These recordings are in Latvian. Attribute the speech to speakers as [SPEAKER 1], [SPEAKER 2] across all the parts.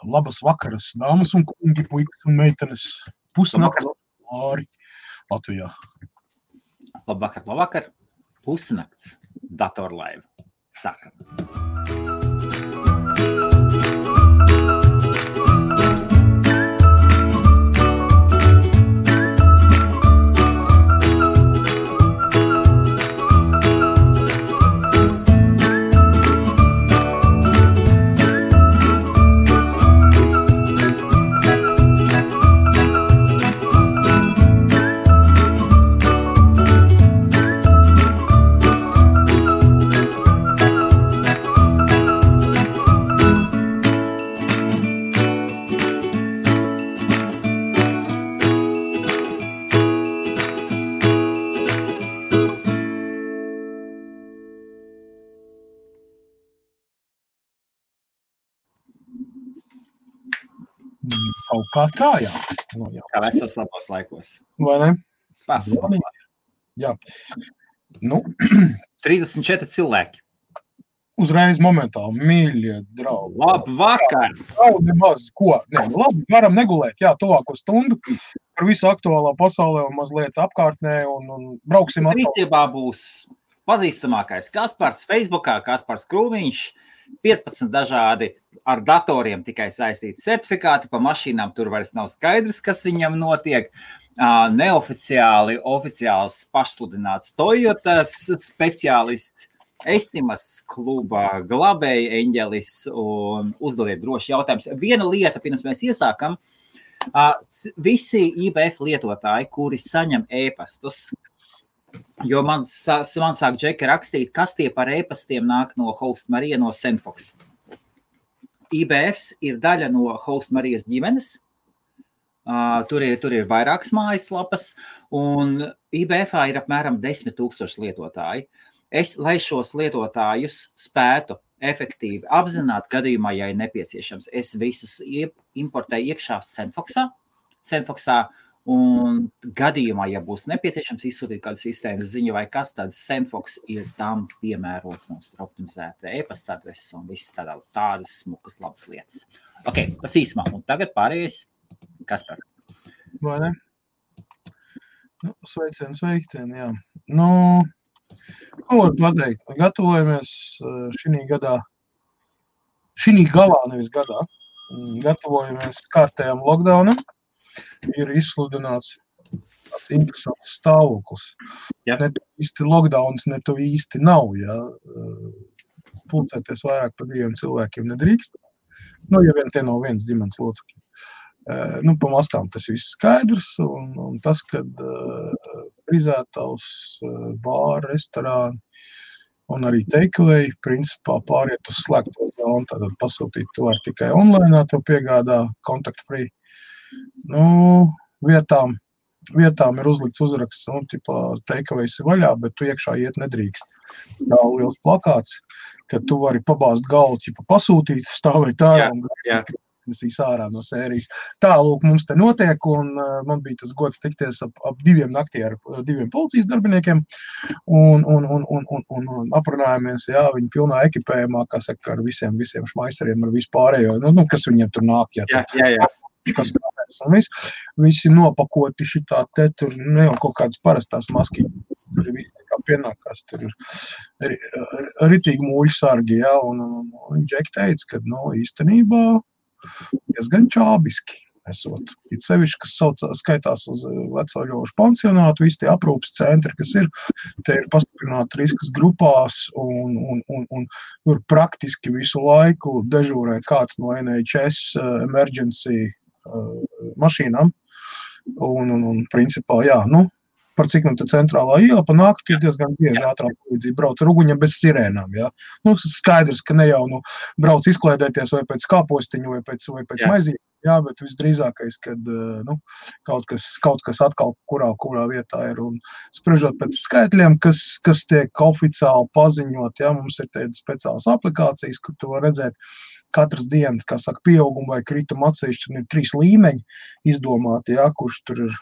[SPEAKER 1] Labas vakaras, dāmas un kungi, puikas un meitenes. Pusnakts Lāri Latvijā.
[SPEAKER 2] Labvakar. Pusnakts datorlaiva. Sākam.
[SPEAKER 1] Kaut kā tā, jā. No, jā.
[SPEAKER 2] Kā vecos labos laikos.
[SPEAKER 1] Vai ne?
[SPEAKER 2] Pasmā.
[SPEAKER 1] Jā. Nu,
[SPEAKER 2] 34 cilvēki.
[SPEAKER 1] uzreiz momentāli, mīļie draugi.
[SPEAKER 2] Labvakar!
[SPEAKER 1] Nemaz, ko? Ne, labi, varam negulēt, jā, tuvāko stundu par visu aktuālā pasaulē un mazliet apkārtnē un brauksim atkal.
[SPEAKER 2] Rīcībā būs pazīstamākais Kaspars Facebookā, Kaspars Krūmiņš, 15 dažādi ar datoriem tikai saistīti certifikāti, pa mašīnām tur vairs nav skaidrs, kas viņam notiek. Neoficiāli, oficiāls pašsludināts Toyotas speciālists, Estimas kluba glabēja eņģelis un uzdodiet droši jautājums. Viena lieta, pirms mēs iesākam, visi IBF lietotāji, kuri saņem ēpastus, jo man sāk Džeka rakstīt, kas tie par ēpastiem nāk no Host Marija no Senfox. IBFs ir daļa no Host Marijas ģimenes, tur ir vairākas mājaslapas, un IBFā ir apmēram 10 000 lietotāji. Lai šos lietotājus spētu efektīvi apzināt gadījumā, ja ir nepieciešams, es visus importēju iekšā Senfoxā, un gadījumā, ja būs nepieciešams izsūtīt kādu sistēmas ziņu vai kas, tad Senfox ir tam piemērots mums tur optimizēta e-pasta adreses un viss tādas smukas labas lietas. Ok, tas īsumā, un tagad pārējais Kaspar.
[SPEAKER 1] Vai ne? Nu, sveicien, jā. Ko var pateikt? Gatavojamies šī galā, nevis gadā. Gatavojamies kārtējām lockdownam. Ir izsludināts tāds interesants stāvoklis.
[SPEAKER 2] Ja.
[SPEAKER 1] Ne tu īsti lockdowns, ne tu īsti nav. Ja. Pulcēties vairāk par 2 cilvēkiem nedrīkst. Ja vien tie nav viens ģimenes locekļi. Pa mastām tas viss skaidrs, un tas, kad frizētavs, bāri, restorāni un arī takeaway principā pāriet uz slēgto zonu, tātad pasūtīt tu var tikai online, tev piegādā contact free. Vietām ir uzlikts uzraksts, takeaways ir vaļā, bet tu iekšā iet nedrīkst. Tā liels plakāts, ka tu vari pabāzt galvu, pasūtīt, stāvēt ārā un nesīs ārā no sērijas. Tā, lūk, mums te notiek, un man bija tas gods tikties ap 2 naktī ar 2 policijas darbiniekiem, un aprunājāmies, jā, viņi pilnā ekipējumā, kā saka, ar visiem šmaiseriem, ar visu pārējo, kas viņiem tur nāk,
[SPEAKER 2] Jā.
[SPEAKER 1] Kas kāpēc, un visi nopakoti šitā te, tur ne jau kaut kādas parastās maskiņas, tur ir visi kā pienākās, tur ir ritīgi mūļu sargi, jā, un Džeki teica, ka, īstenībā diezgan čābiski esot. It sevišķi, kas skaitās uz veco ļošu pansionātu, visi tie aprūpes centri, kas ir, te ir pastiprināti riskas grupās, un tur praktiski visu laiku dežūrē kāds no NHS emergency mašīnām, un principā, jā, par cik te centrālā iela pa nakti diezgan bieži ātrā palīdzība brauc ar uguņiem bez sirēnām, jā. Skaidrs, ka ne jau, brauc izklaidēties vai pēc kāpostiņu, vai pēc maizīm, jā, bet visdrīzākais, kad, kaut kas atkal kurā vietā ir, un spriežot pēc skaitļiem, kas tiek oficiāli paziņot, jā, mums ir tādas speciālas aplikācijas, kur tu var redzēt katras dienas, kā saka, pieauguma vai krituma atsevišķi, un ir 3 līmeņi izdomāti, jā, kurš tur ir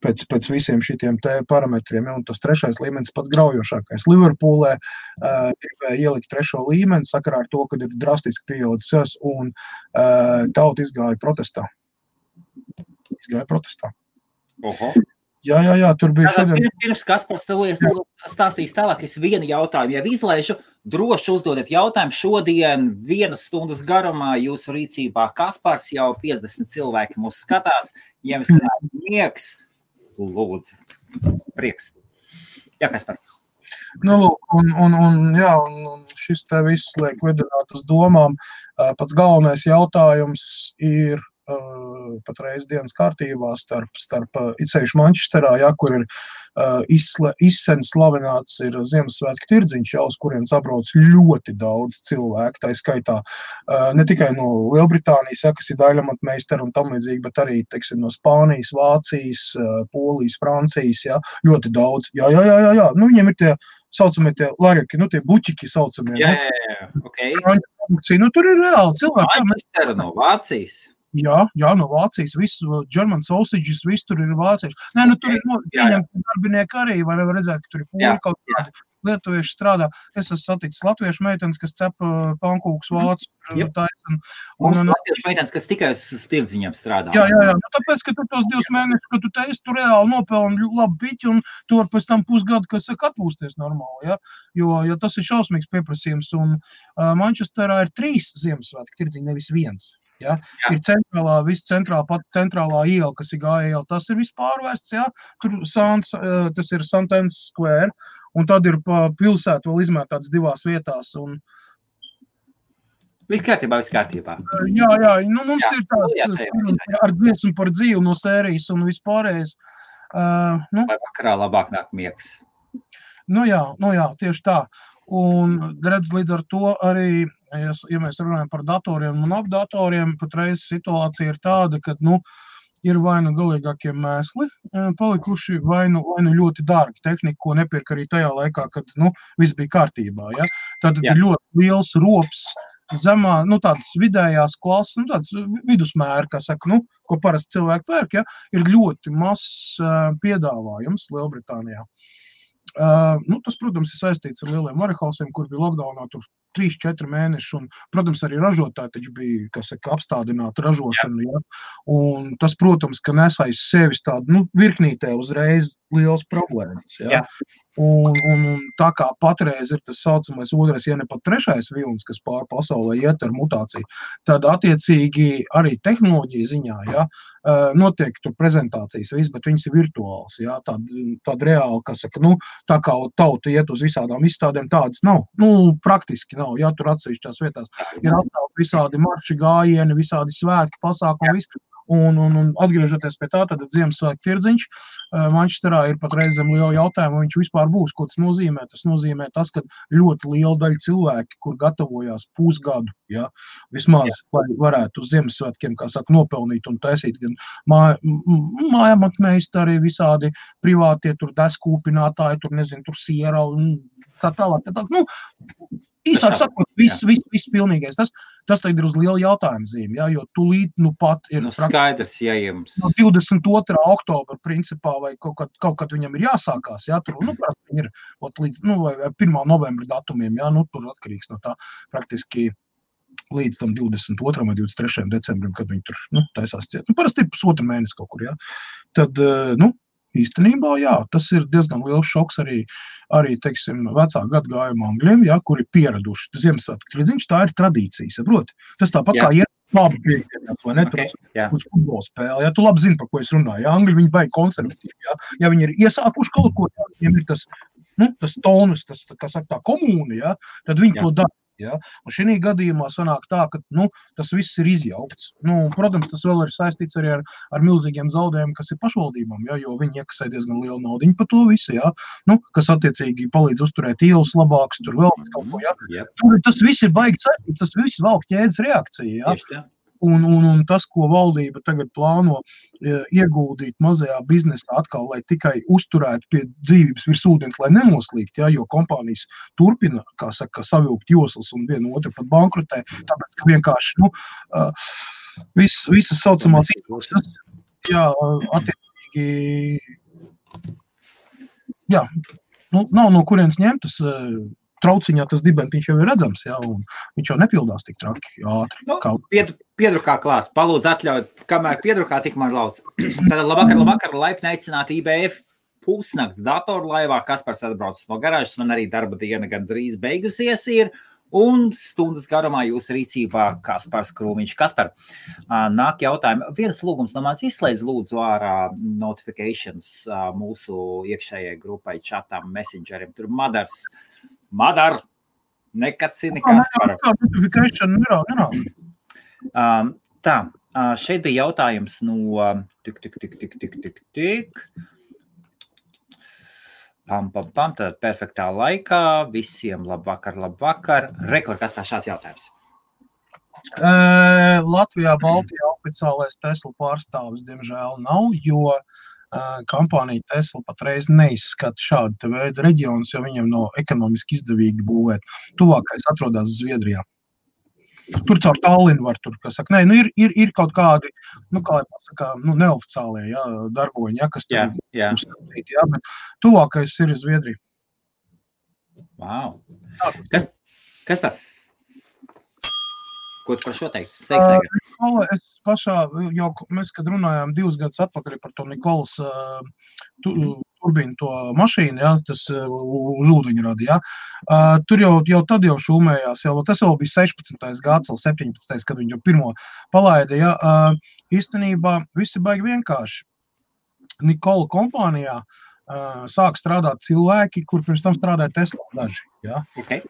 [SPEAKER 1] pēc visiem šitiem te parametriem, ja, un tas 3. līmenis pats graujošākais. Liverpoolē gribēja ielikt 3. līmeni sakarā ar to, kad ir drastiski pieaudzis, un tauta izgāja protestā.
[SPEAKER 2] Oho.
[SPEAKER 1] Jā, tur bija šodien.
[SPEAKER 2] Pirms Kaspars stāstīs tālāk, es vienu jautājumu jau izlaižu. Droši uzdodiet jautājumu šodien 1 stundas garumā jūsu rīcībā. Kaspars jau 50 cilvēki mūs skatās. Ja jums kādā miegs, lūdzu. Prieks. Jā, Kaspar.
[SPEAKER 1] Un šis te viss liek vedināt uz domām. Pats galvenais jautājums ir patreiz dienas kārtībā starp itsevišķi Manchesterā, kur ir izsen slavināts ir Ziemassvētku tirdziņš, uz kuriem sabrauc ļoti daudz cilvēku, tā skaitā ne tikai no Lielbritānijas, kas ir daļamatmeistari un tam līdzīgi, bet arī, teiksim, no Spānijas, Vācijas, Polijas, Francijas, ļoti daudz. Jā. Nu, viņiem ir tie saucamie tie larjaki, nu, tie buķiki saucamie.
[SPEAKER 2] Jā, okay.
[SPEAKER 1] Nu, tur ir reāli cilvēki.
[SPEAKER 2] Manchester no Vācijas.
[SPEAKER 1] Jā, no Vācijas, viss German sausages, viss tur ir vācieši. Nē, nu tur ir pieņemti darbinieki arī, var redzēt, ka tur ir poļi kaut kādi lietuvieši strādā. Es esmu saticis latviešu meitenes, kas cep pankūkus vācu.
[SPEAKER 2] Mums latviešu meitenes, kas tikai uz tirdziņiem strādā.
[SPEAKER 1] Jā, nu tāpēc, ka tu tos 2 mēnešus, ka tu teici, tu reāli nopelni labu piķi un tu var pēc tam pusgadu, kas saka, atpūsties normāli, ja? Jo tas ir šausmīgs pieprasījums un Manchesterā ir 3 Ziemassvētku tirdziņi, nevis 1. Ja? Ir centrālā iela, kas ir gāja, tas ir viss pārvērsts, ja? Tur tas ir St. Anne's Square, un tad ir pa pilsētu vēl izmētāts 2 vietās. Un...
[SPEAKER 2] Viss kārtībā.
[SPEAKER 1] Jā, nu mums ir tāds ar dziesmu par dzīvu no sērijas un vispārējais.
[SPEAKER 2] Vai vakarā labāk nāk miegs?
[SPEAKER 1] Nu jā, tieši tā. Un redz līdz ar to arī, ja mēs runājam par datoriem un apdatoriem, patreiz situācija ir tāda, ka, ir vai nu galīgākie mēsli palikuši, vai nu ļoti dārgi tehnika, ko nepirka arī tajā laikā, kad, viss bija kārtībā, ja. Tātad ir ļoti liels rops zemā, tādas vidējās klases, tāds vidusmēra, kā saka, ko parasti cilvēki pērk, ja, ir ļoti mazs piedāvājums Lielbritānijā. Tas, protams, ir saistīts ar lieliem warehousiem, kur bija lockdownā tur 3-4 mēneši, un, protams, arī ražotāji taču bija, kā saka, apstādināta ražošana, ja? Un tas, protams, ka nes aiz sevis tādu, virknītē uzreiz liels problēmas, ja? Un tā kā patreiz ir tas saucamais 2, ja ne pat 3. vilnis, kas pār pasaulē iet ar mutāciju, tad attiecīgi arī tehnoloģija ziņā, ja, notiek tur prezentācijas viss, bet viņas ir virtuāls, ja, tāda reāli, kas saka, tā kā tauta iet uz visādām izstādēm, tādas nav, praktiski nav, ja, tur atsevišķās vietās ir atcelt visādi marši gājieni, visādi svētki, pasākumi, viss. Un atgriežoties pie tā, tad Ziemassvētku tirdziņš Manchesterā ir pat reizēm liela jautājuma, viņš vispār būs, ko tas nozīmē. Tas nozīmē tas, ka ļoti liela daļa cilvēki, kur gatavojās pusgadu, ja, vismaz, lai varētu uz Ziemassvētkiem, kā saka, nopelnīt un taisīt gan mājamatmeistari, visādi privātie, tur deskūpinātāji, tur siera un tā tālāk. Īsāk sakot, viss pilnīgais. Tas tagad ir uz lielu jautājumu zīmi, ja, jo tūlīt pat ir
[SPEAKER 2] skaidrs, ja jums...
[SPEAKER 1] No 22. oktobra principā vai kaut kad viņam ir jāsākās, ja, tur, viņi ir līdz, vai 1. novembra datumiem, ja, tur atkarīgs no tā praktiski līdz tam 22. vai 23. decembrim, kad viņi tur, taisās ciet. Parasti ir pusotru mēnesi kaut kur, ja. Tad, īstenībā, jā, tas ir diezgan liels šoks arī teiksim, vecā gadgājuma angļiem, ja, kuri pieraduši Ziemassvētku tirdziņš, tā ir tradīcija, saproti. Tas tāpat kā iet labi pieņemās, vai ne, uz futbola spēli, ja, tu labi zini, par ko es runāju, ja, angļi viņi baigi konservatīvi, ja viņi ir iesākuši kaut ko, ja, viņiem ir tas tonus, tas, kā saka, tā komūna, ja, tad viņi to dara. Ja? Un šī gadījumā sanāk tā, ka tas viss ir izjaukts. Protams, tas vēl ir saistīts arī ar milzīgiem zaudējumiem, kas ir pašvaldībām, ja? Jo viņi iekasē diezgan lielu naudiņu par to visu, ja? Kas attiecīgi palīdz uzturēt ielas labāks, tur vēl kaut ko. Ja? Tur tas viss ir baigi saistīts, tas viss valk ķēdes reakcija. Ja? Un tas, ko valdība tagad plāno ieguldīt mazajā biznesā atkal, lai tikai uzturētu pie dzīvības virs ūdens, lai nenoslīgt, ja, jo kompānijas turpina, kā saka, savilkt joslas un vienu otru pat bankrotē, tāpēc, ka vienkārši, visas saucamās izmaksas, jā, attiecīgi attiecīgi, jā, nav no kurienes ņemt, tas trauciņā tas dibentiņš jau ir redzams, jā, un viņš jau nepildās tik traki ātri.
[SPEAKER 2] Piedrukā klāt, palūdzu atļaut, kamēr piedrukā tikmēr lauc. Tātad labvakar, laipni aicināt IBF pusnakts datorlaivā, Kaspars atbrauc no garāžas, man arī darba diena gan drīz beigusies ir, un stundas garumā jūsu rīcībā Kaspars Krūmiņš. Kaspar, nāk jautājumi. Viens lūgums no mans izslēdz lūdzu ārā notifications mūsu iekšējai grupai, čatam, messengerim. Tur Madar, nekacini Kaspara.
[SPEAKER 1] Notification nerā.
[SPEAKER 2] Tā, šeit bija jautājums no Tad perfektā laikā, visiem labvakar. Rekord, kas pār šāds jautājums?
[SPEAKER 1] Latvijā, Baltijā oficiālais Tesla pārstāvis, diemžēl, nav, jo kompānija Tesla patreiz neizskata šādu veidu reģionus, jo viņiem nav ekonomiski izdevīgi būvēt. Tuvākais atrodas Zviedrijā. Tur caur Tallinu var tur, kas saka, ir kaut kādi, kā pasaka, neoficiālie, darboņi, kas tur uzskatīt, bet tuvākais ir Zviedrija.
[SPEAKER 2] Wow. Kas par? Ko tu par šo teikt? Es
[SPEAKER 1] pašā, jau mēs, kad runājām 2 gadus atpakaļ par to Nikolas turbīnu to mašīnu, tas uz ūdeņrada, tur jau tad šūmējās, tas jau bija 16. gads, 17. kad viņi jau pirmo palaida, īstenībā visi baigi vienkārši. Nikola kompānijā sāk strādāt cilvēki, kur pirms tam strādāja Tesla daži,
[SPEAKER 2] Okay,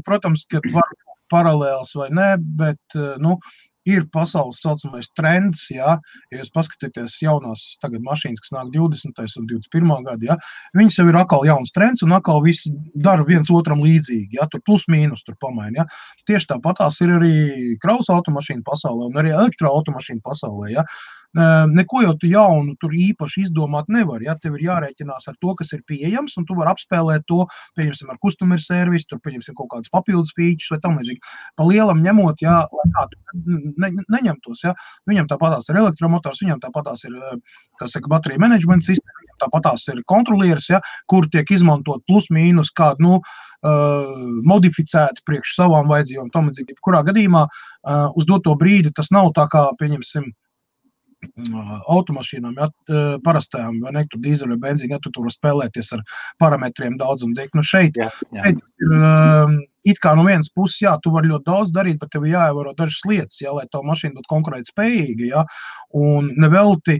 [SPEAKER 1] protams, ka var paralēls vai ne, bet, ir pasaules saucamais trends, ja jūs paskatīties jaunās tagad mašīnas, kas nāk 20. un 21. gadu, viņas jau ir atkal jauns trends un atkal visi dara viens otram līdzīgi, tur plus mīnus tur pamaina, Tieši tāpatās ir arī kravas automašīnu pasaulē un arī elektroautomašīnu pasaulē, Neko jau tu jaunu tur īpaši izdomāt nevar, Tev ir jārēķinās ar to, kas ir pieejams, un tu vari apspēlēt to, pieņemsim ar customer service, tur pieņemsim kaut kādas papildus features vai tam līdzīgi. Pa lielam ņemot, lai kādu neņemtos, Viņam tāpatās ir elektromotors, viņam tāpatās ir, baterija management sistēma, viņam tāpatās ir kontrolieris, kur tiek izmantot plus mīnus kādu, modificēti priekš savām vajadzībām, tam līdzīgi. Kurā gadījumā uz doto brīdi tas nav tā kā, pieņemsim, automašīnām, parastajām, vai ne, tur dīzeļu vai benzīnu, tu tur spēlēties ar parametriem daudz un dēļ. Šeit ir it kā no vienas puses, tu vari ļoti daudz darīt, bet tev jāievēro dažas lietas, lai tā mašīna būtu konkurēt spējīga, un nevelti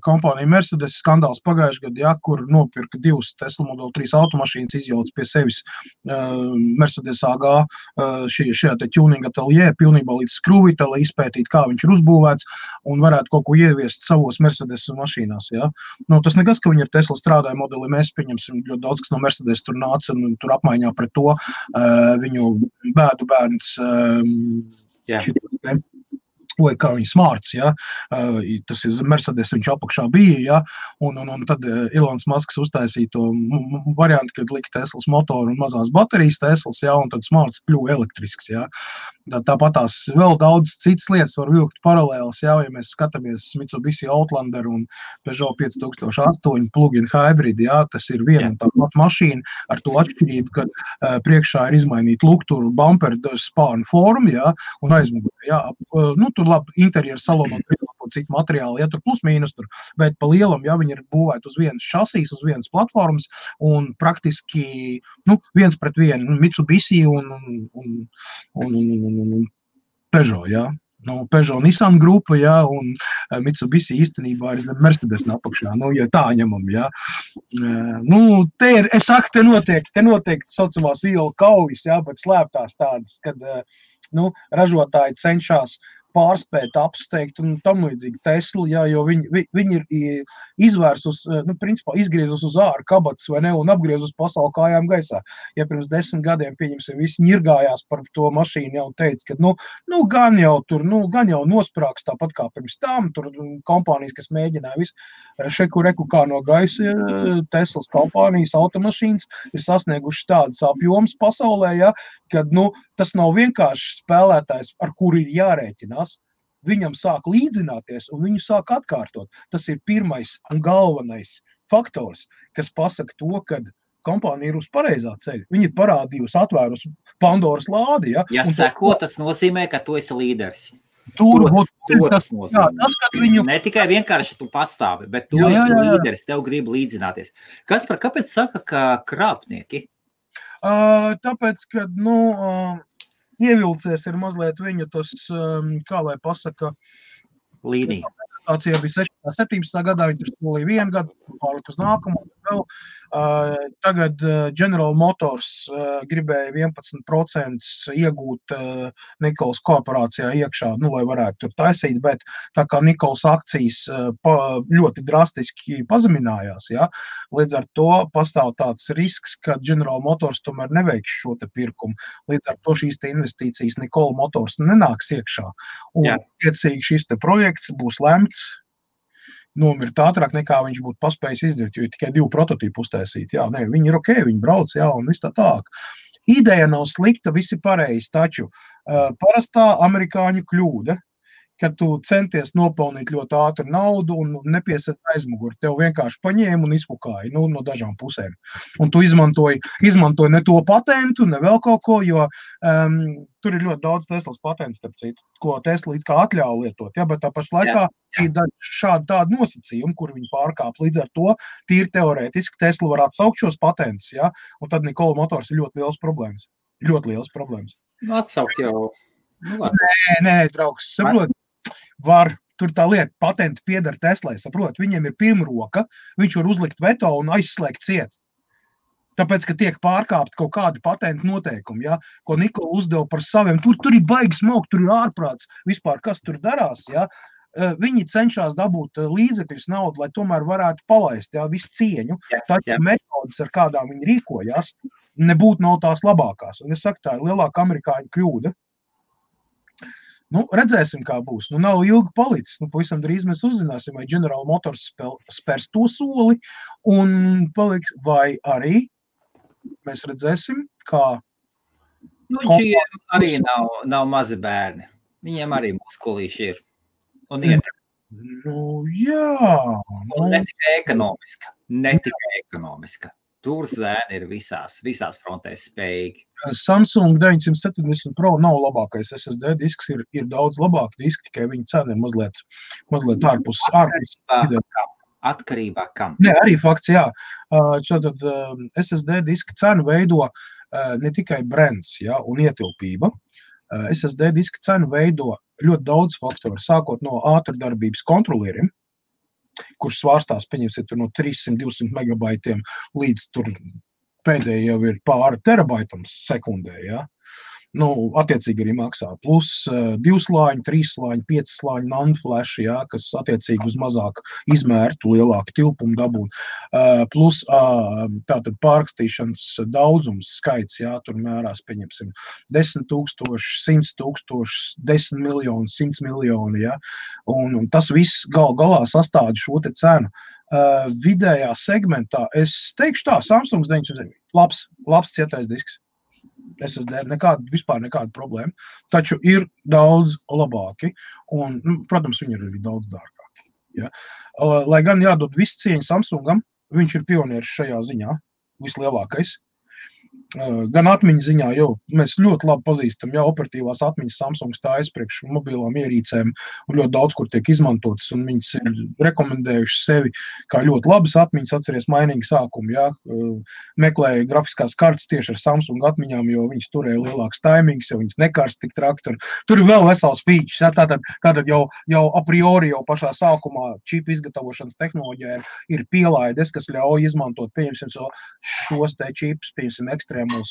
[SPEAKER 1] kompānija Mercedes skandāls pagājušajā gadā, kur nopirka 2 Tesla Model 3 automašīnas, izjauc pie sevis Mercedes AG šajā te tuning atelier, pilnībā līdz skrūvītē, lai izpētītu, kā viņš ir uzbūvēts, un varētu kaut ko ieviest savos Mercedes mašīnās, Tas nekas, ka viņi ar Tesla strādāja modeli, mēs pieņemsim ļoti daudz, kas no Mercedes tur nāca un tur apmaiņā pret to, viņu bēdu bērns vai kā viņi smārts, tas ir Mercedes, viņš apakšā bija, un tad Ilons Masks uztaisīja to variantu, kad lika Teslas motoru un mazās baterijas Teslas, un tad smārts kļuva elektrisks, Tāpatās vēl daudz citas lietas var vilkt paralēlas, ja mēs skatāmies Mitsubishi Outlander un Peugeot 5008 plug-in hybrid, tas ir viena tā pati mašīna ar to atšķirību, ka priekšā ir izmainīta lukturu, bumper, spānu formu, un aizmugurē, tur labi interjeru salonot citu materiālu, tur plus mīnus tur, bet pa lielam, viņi ir būvēti uz vienas šasīs, uz vienas platformas, un praktiski, viens pret vienu, Mitsubishi un Peugeot, Peugeot Nissan grupa, un Mitsubishi īstenībā ir Mercedes apakšā, ja tā ņemam, es saku, te notiek saucamās ielu kaujas, bet slēptās tādas, kad, ražotāji cenšas pārspēt, apsteigt un tam līdzīgi Tesla, jo viņi ir izvērsus, principā izgriezus uz āru kabatas vai ne, un apgriezus pasauli kājām gaisā. Ja pirms 10 gadiem, pieņemsim, visi ņirgājās par to mašīnu jau teica, ka, gan jau nosprāks tāpat kā pirms tam, tur kompānijas, kas mēģināja visu, reku kā no gaisa, Teslas kompānijas, automašīnas ir sasnieguši tādas apjomas pasaulē, kad, tas nav vienkārši spēlētājs, ar kuru ir jārēķinās. viņam sāk līdzināties un viņu sāk atkārtot. Tas ir pirmais un galvenais faktors, kas pasaka to, ka kompānija ir uz pareizā ceļa. Viņa ir parādījusi, atvērusi Pandoras lādi. Ja,
[SPEAKER 2] seko, tas nozīmē, ka tu esi līderis.
[SPEAKER 1] Tas nozīmē.
[SPEAKER 2] Ne tikai vienkārši tu pastāvi, bet tu esi līderis, tev grib līdzināties. Kāpēc saka, ka krāpnieki?
[SPEAKER 1] Tāpēc, ka, ievilcies ir mazliet viņu tas, kā lai pasaka,
[SPEAKER 2] līnija.
[SPEAKER 1] Bija 17. gadā, viņi tur solīja 1 gadu, pārlik uz nākamo vēl. Tagad General Motors gribēja 11% iegūt Nikolas korporācijā iekšā, lai varētu tur taisīt, bet tā kā Nikolas akcijas ļoti drastiski pazeminājās, ja, līdz ar to pastāv tāds risks, ka General Motors tomēr neveiks šo te pirkumu. Līdz ar to šīs te investīcijas Nikola Motors nenāks iekšā. Un tiecīgi šis te projekts būs lemts nomirt ātrāk nekā viņš būtu paspējis izdarīt, jo ir tikai 2 prototīpi uztaisīt. Jā, viņi ir ok, viņi brauc, jā, un viss tā tālāk. Ideja nav slikta, visi pareizi, taču parastā amerikāņu kļūda, kad tu centies nopelnīt ļoti ātri naudu un nepieset aizmuguri. Tev vienkārši paņēma un izpukāja no dažām pusēm. Un tu izmantoji ne to patentu, ne vēl kaut ko, jo tur ir ļoti daudz Teslas patents, starp citu, ko Tesla it kā atļauj lietot. Ja, bet tā paša laikā ir šādi tādi nosacījumi, kur viņi pārkāp. Līdz ar to tīri teorētiski Tesla var atsaukt šos patentus, ja, un tad Nikola Motors ir ļoti liels problēmas. Ļoti liels problēmas.
[SPEAKER 2] Atsaukt jau.
[SPEAKER 1] Nē, draugs, saprot. Var, tur tā lieta, patenti pieder Teslai, saprot, viņiem ir pirmroka, viņš var uzlikt veto un aizslēgt ciet. Tāpēc, ka tiek pārkāpt kaut kādi patentu noteikumi, ja, ko Nikola uzdeva par saviem, tur ir baigi smokt, tur ir ārprāts, vispār kas tur darās, ja. Viņi cenšas dabūt līdzekļus naudu, lai tomēr varētu palaist, ja, visu cieņu, taču metodas, ar kādām viņi rīkojas, nebūtu nav tās labākās. Un es saku, tā ir lielāka amerikāņu kļūda. Redzēsim, kā būs. Nav ilgi palicis. Pavisam drīz mēs uzzināsim, vai General Motors spērs to soli un paliks, vai arī mēs redzēsim, kā...
[SPEAKER 2] Viņiem arī nav mazi bērni. Viņiem arī muskulīši ir. Un iet.
[SPEAKER 1] Jā.
[SPEAKER 2] Un ne tikai ekonomiska. Tur zēni ir visās frontēs spējīgi.
[SPEAKER 1] Samsung 970 Pro nav labākais SSD disks, ir daudz labāk diski, tikai viņa cena ir mazliet ārpus.
[SPEAKER 2] Atkarībā kam?
[SPEAKER 1] Nē, arī fakts, jā. Šātad SSD diska cenu veido ne tikai brands, ja, un ietilpība. SSD diska cenu veido ļoti daudz faktoru, sākot no ātrdarbības kontrolieriem, kurš svārstās, pieņemsiet, no 300-200 megabaitiem līdz tur pēdējie jau ir pāri terabaitam sekundē, ja. Attiecīgi arī maksā. Plus 2 slāņi, 3 slāņi, 5 slāņi NAND flash, ja, kas attiecīgi uz mazāk izmērtu, lielāku tilpumu dabūt. Plus tātad pārrakstīšanas daudzums skaits, ja, tur mērās, pieņemsim, 10 000, 100 000, 10 miljoni, 100 miljoni, ja. Un tas viss galā sastāda šo te cenu. Vidējā segmentā, es teikšu tā, Samsung 970, labs cietais disks. SSD, vispār nekāda problēma, taču ir daudz labāki un, protams, viņi ir arī daudz dārgāki. Ja? Lai gan jādod viss cieņa Samsungam, viņš ir pionieris šajā ziņā, vislielākais. Gan atmiņu ziņā, jo mēs ļoti labi pazīstam, ja operatīvās atmiņas Samsung stājas priekš mobilām ierīcēm un ļoti daudz, kur tiek izmantotas, un viņas ir rekomendējuši sevi kā ļoti labas atmiņas, atceries mainīgi sākumu, ja, meklēja grafiskās kartes tieši ar Samsung atmiņām, jo viņas turēja lielāks taimings, jo viņas nekārst tik trakti, un tur ir vēl vesels features, ja, tātad jau a priori jau pašā sākumā čipu izgatavošanas tehnoloģija ir pielaides, kas ļauj izmantot, pieņemsim, šos te čipus, pieņemsim, ekstrēmos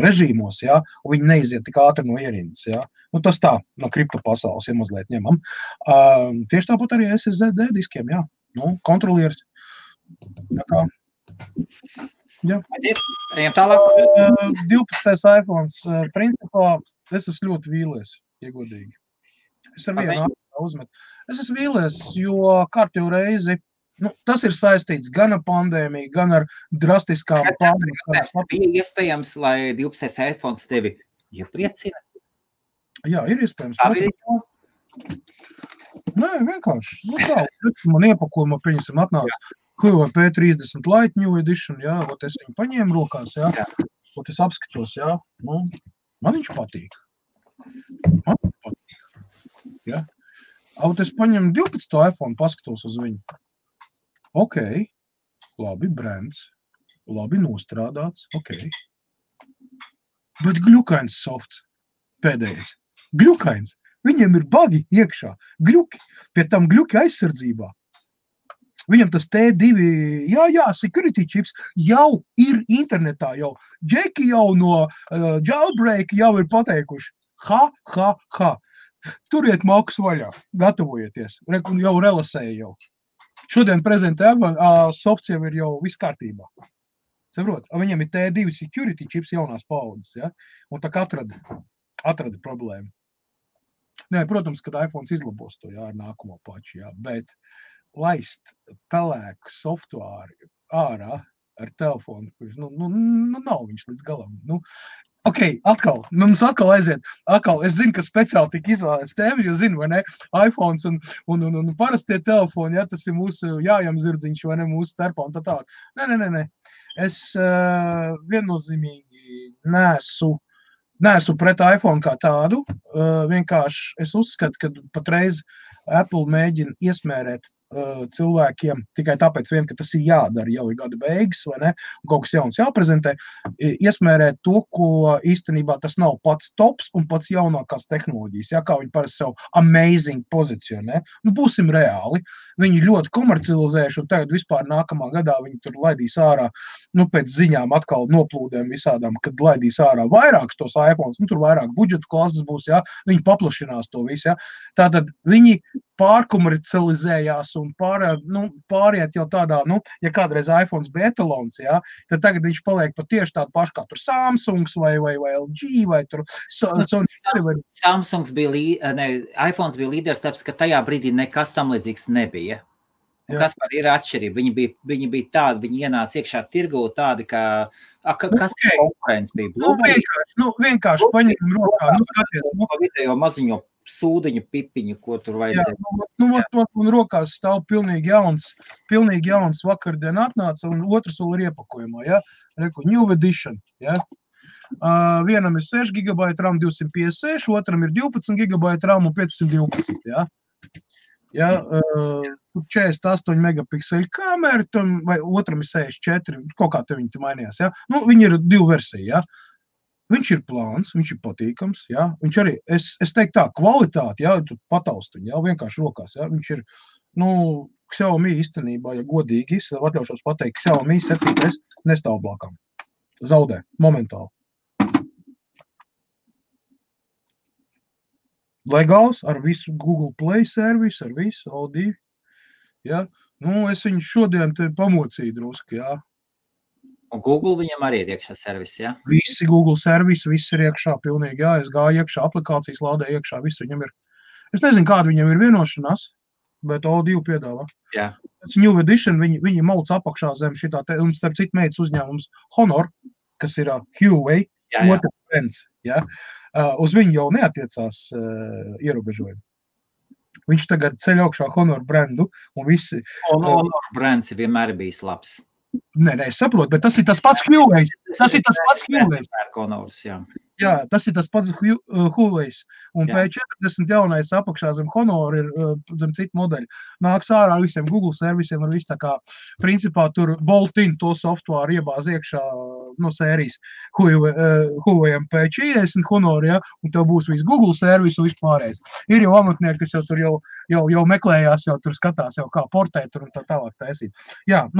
[SPEAKER 1] režīmos, ja, un viņi neiziet tik ātri no ierindas. Ja. Tas tā, no kripto pasaules, ja mazliet ņemam. Tieši tāpat arī SSD diskiem, jā. Kontrolieris. Tā kā. Jā.
[SPEAKER 2] Ejam tālāk.
[SPEAKER 1] 12. iPhones. Principā, es esmu ļoti vīlies, ja godīgi. Es ar vienu uzmetu. Es esmu vīlies, jo kārtējo reizi tas ir saistīts gan ar pandēmiju, gan ar drastiskām
[SPEAKER 2] pārmaiņām. Bija iespējams, lai 12. iPhones tevi iepriecina?
[SPEAKER 1] Jā, ir iespējams. Nē, vienkārši. Nu tā, man iepakojumā, pieņemsim, atnāca Huawei P30 Lite New Edition, jā, ot es viņu paņēmu rokās, jā, ot es apskatos, jā, nu, man viņš patīk. Jā. Ot es paņemu 12. iPhone, paskatos uz viņu. Ok, labi, brands, labi nostrādāts, ok. Bet gļukains softs, pēdējais. Gļukains. Viņiem ir bagi iekšā, gļuki, pie tam gļuki aizsardzībā. Viņam tas T2, jā, security chips jau ir internetā, jau džeki jau no jailbreak jau ir pateikuši. Ha. Turiet maukus vaļā, gatavojieties, jau relasēja jau. Šodien prezentē softs jau ir jau viss kārtībā. Saprot, viņam ir T2 security chips jaunās paudzes, ja? Un tā kā atrada problēmu. Nē, protams, kad iPhones izlabos to, jā, ar nākamo paču, jā, bet laist pelēku softuāri ārā ar telefonu, kurš, nav viņš līdz galam, Ok, mums atkal aiziet, es zinu, ka speciāli tika izvēlēts tēma, jo zinu, vai ne, iPhones un parastie telefoni, ja, tas ir mūsu jājam zirdziņš, vai ne, mūsu starpā un tā tālāk. Nē, es viennozīmīgi neesmu pret iPhone kā tādu, vienkārši es uzskatu, ka patreiz Apple mēģina iesmērēt cilvēkiem tikai tāpēc vien, ka tas ir jādara, jau ir gada beigas, vai ne, un kaut kas jauns jāprezentē, iesmērēt to, ko īstenībā tas nav pats tops un pats jaunākās tehnoloģijas, jā, kā viņi parasti savu amazing pozicionē. Būsim reāli, viņi ļoti komercializējuši, un tagad vispār nākamā gadā viņi tur laidīs ārā, pēc ziņām atkal noplūdēm visādām, kad laidīs ārā vairākus tos iPhones, tur vairāk budžeta klases būs, jā, viņi paplašinās to visu, jā. Tātad viņi pārkomercializējās un pāriet jau tādā, ja kādreiz iPhones bija etalons, jā, tad tagad viņš paliek pat tieši tādu pašu kā tur Samsungs vai LG vai tur
[SPEAKER 2] Samsungs bija, iPhones bija līderis, tāpēc, ka tajā brīdī nekas tam līdzīgs nebija. Un kas par ir atšķirība? Viņi bija tādi, viņi ienāca iekšā tirgū tādi, ka kas konkurence bija?
[SPEAKER 1] Vienkārši paņem rokā, skaties.
[SPEAKER 2] Video maziņo sūdiņu pipiņu, ko tur vajadzēja.
[SPEAKER 1] Un rokās stāv pilnīgi jauns vakardien atnāca, un otrs vēl ir iepakojumā, ja? New Edition, ja? Vienam ir 6 GB RAM 256, otram ir 12 GB RAM un 512, ja? Ja, 48 megapikseļu kamera, vai otram ir 64, kaut kā te viņi mainījās, ja? Viņi ir 2 versiji, ja? Viņš ir plāns, viņš ir patīkams, jā, viņš arī, es teiktu tā, kvalitāti, jā, tu pataustuņi, jā, vienkārši rokās, jā, viņš ir, Xiaomi īstenībā, ja godīgi, es atļaušos pateikt, Xiaomi 7 nestāv blakām, zaudē, momentāli. Legāls, ar visu Google Play servisu, ar visu, O2, jā, es viņu šodien te pamocīju drusku, jā.
[SPEAKER 2] Un Google viņam arī ir iekšā servisi, jā?
[SPEAKER 1] Visi Google servisi, viss ir iekšā pilnīgi, jā, es gāju iekšā, aplikācijas lādē iekšā, viss viņam ir. Es nezinu, kāda viņam ir vienošanās, bet O2 piedāvā.
[SPEAKER 2] Jā.
[SPEAKER 1] Tas New Edition, viņi mauc apakšā zem šitā, un starp citu meitas uzņēmums Honor, kas ir Huawei, otrs brands, jā, uz viņu jau neatiecās ierobežojumi. Viņš tagad ceļ augšā Honor brandu, un visi...
[SPEAKER 2] Honor brands vienmēr bijis labs.
[SPEAKER 1] Nē, es saprotu, bet tas ir tas pats Huawei. Tas ir tas pats Huawei. Jā, tas ir tas pats Huawei. Un P40 jaunais apakšā zem Honor ir zem citu modeļu. Nāks ārā ar visiem Google servisiem, ar visu tā kā, principā, tur bolt-in to softuāru iebāz iekšā no sērijas Huawei P40 Honor, ja, un tev būs viss Google servis un viss pārējais. Ir jau amatnieki, kas jau tur jau meklējās, jau tur skatās, jau kā portēt tur un tā tālāk taisīt. Jā,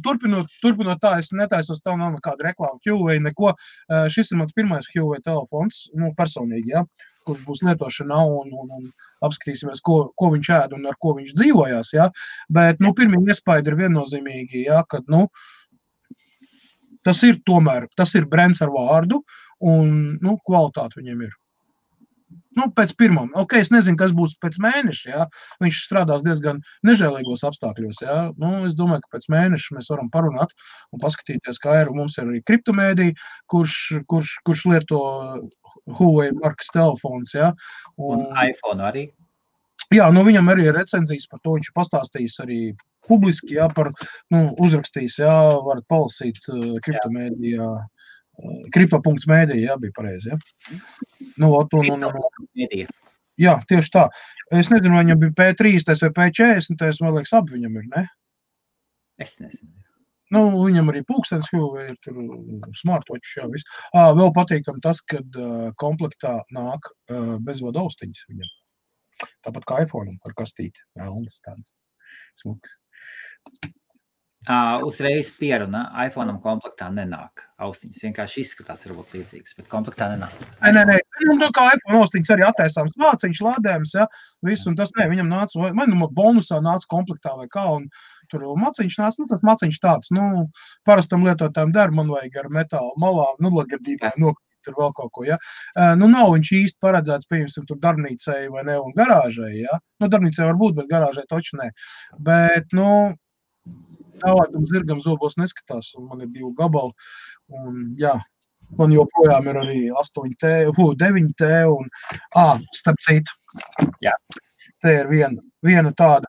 [SPEAKER 1] turpinot tā, es netaisos, tev nav nekāda reklāma Huawei, neko. Šis ir mans pirmais Huawei telefons, personīgi, ja, kurš būs lietošanā un apskatīsimies, ko viņš ēd un ar ko viņš dzīvojās, ja. Bet, pirmie iespaidi ir viennozīmīgi, ja, kad, tas ir brands ar vārdu un, kvalitāte viņiem ir. Nu, pēc pirmām. Ok, es nezinu, kas būs pēc mēneša, jā. Viņš strādās diezgan nežēlīgos apstākļos, jā. Nu, es domāju, ka pēc mēneša mēs varam parunāt un paskatīties, kā ir. Mums ir arī kriptomēdija, kurš lieto Huawei markas telefons, jā.
[SPEAKER 2] Un iPhone arī.
[SPEAKER 1] Jā, nu viņam arī ir recenzijas par to, viņš pastāstījis arī publiski, jā, par, uzrakstījis, jā, varat palasīt kriptomēdijā. Kripto.mēdija, jā, bija pareizi, jā.
[SPEAKER 2] Kripto.mēdija.
[SPEAKER 1] Jā, tieši tā. Es nezinu, vai viņam bija P30 vai P40, man liekas, abi viņam ir, ne?
[SPEAKER 2] Es nezinu.
[SPEAKER 1] Nu, viņam arī pulkstenis, ir tur smartwatch, jā, viss. Vēl patīkam tas, kad komplektā nāk bezvadu austiņas viņam. Tāpat kā iPhone ar kastīti. Vēlnes tāds smuks.
[SPEAKER 2] Uzreiz pieruna, iPhone komplektā nenāk austiņas. Vienkārši izskatās varbūt līdzīgas, bet komplektā nenāk.
[SPEAKER 1] Nē. Nu, kā iPhone austiņas arī attaisāms māciņš, lādējums, ja, viss, un tas ne, viņam nāca, vai bonusā nāca komplektā vai kā, un tur maciņš nāca, tas maciņš tāds, parastam lietotājiem der, man vajag ar metālu malā, lagadībā nokrīt tur vēl kaut ko, ja. Nav viņš īsti paredzēts, pieņemsim, tur darbnīcai vai ne, un garāžai, ja. Darbnīcai var būt, bet garāžai taču ne. Bet, tālākam zirgam zobos neskatās, un man ir 2 gabali, un jā, man joprojām ir arī 8T, 9T, un, starp citu,
[SPEAKER 2] jā.
[SPEAKER 1] Te ir viena tāda,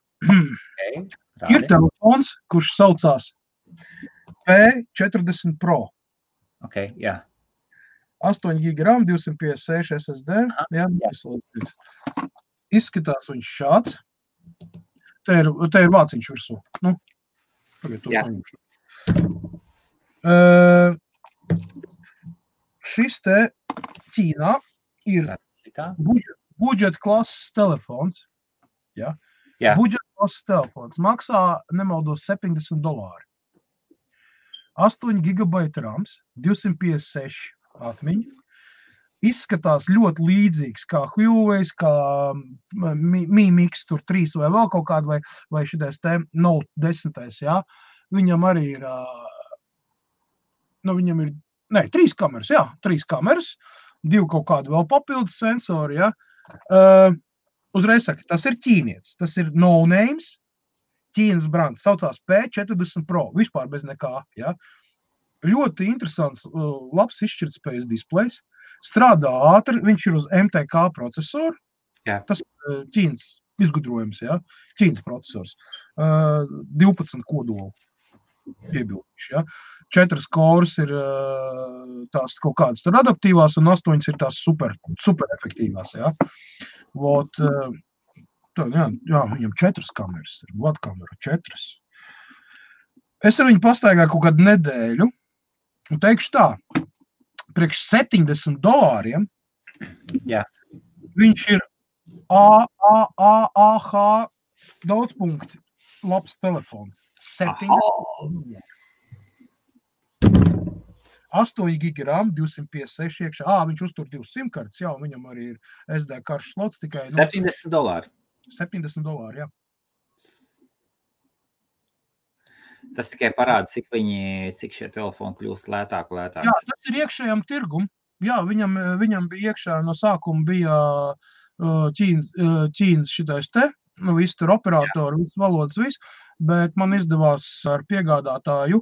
[SPEAKER 1] ir telefons, kurš saucās P40 Pro.
[SPEAKER 2] Ok, jā.
[SPEAKER 1] 8 GB RAM, 256 SSD, jā. Izskatās viņš šāds, te ir vāciņš virsū, Šis te Ķīnā ir budžeta klases telefons. Ja? Budžeta klases telefons maksā, nemaldos, $70. 8 GB RAMs, 256 atmiņa. Izskatās ļoti līdzīgs kā Huawei, kā Mi Mix tur 3 vai vēl kaut kādu, vai šitais te Note 10, jā. Viņam arī ir, viņam ir, 3 kameras, jā, 3 kameras, 2 kaut kādu vēl papildus sensori, jā. Uzreiz saka, tas ir ķīnietis, tas ir no names, Ķīnas brands, saucās P40 Pro, vispār bez nekā, jā. Ļoti interesants, labs izšķirtspējas displejs. Strādā ātri, viņš ir uz MTK procesoru, tas Ķīnas izgudrojums, jā, Ķīnas procesors, 12 kodolu piebilduši, jā, 4 cores ir tās kaut kādas tur adaptīvās un 8 ir tās super efektīvās, jā, jā, viņam 4 kameras ir, vadkamera 4. Es ar viņu pastaigāju kaut kādu nedēļu un teikšu tā, priekš $70,
[SPEAKER 2] jā.
[SPEAKER 1] Viņš ir AH daudzpunkti labs telefons. 8 GB RAM, 256 iekšā. Viņš uztur 2 simkartes, jā, un viņam arī ir SD karšu slots tikai.
[SPEAKER 2] $70.
[SPEAKER 1] $70, jā.
[SPEAKER 2] Tas tikai parāda, cik šie telefoni kļūst lētāk.
[SPEAKER 1] Jā, tas ir iekšējam tirgum. Jā, viņam bija iekšā no sākuma bija Ķīnas šitais te, viss tur operatori, viss valodas, viss, bet man izdevās ar piegādātāju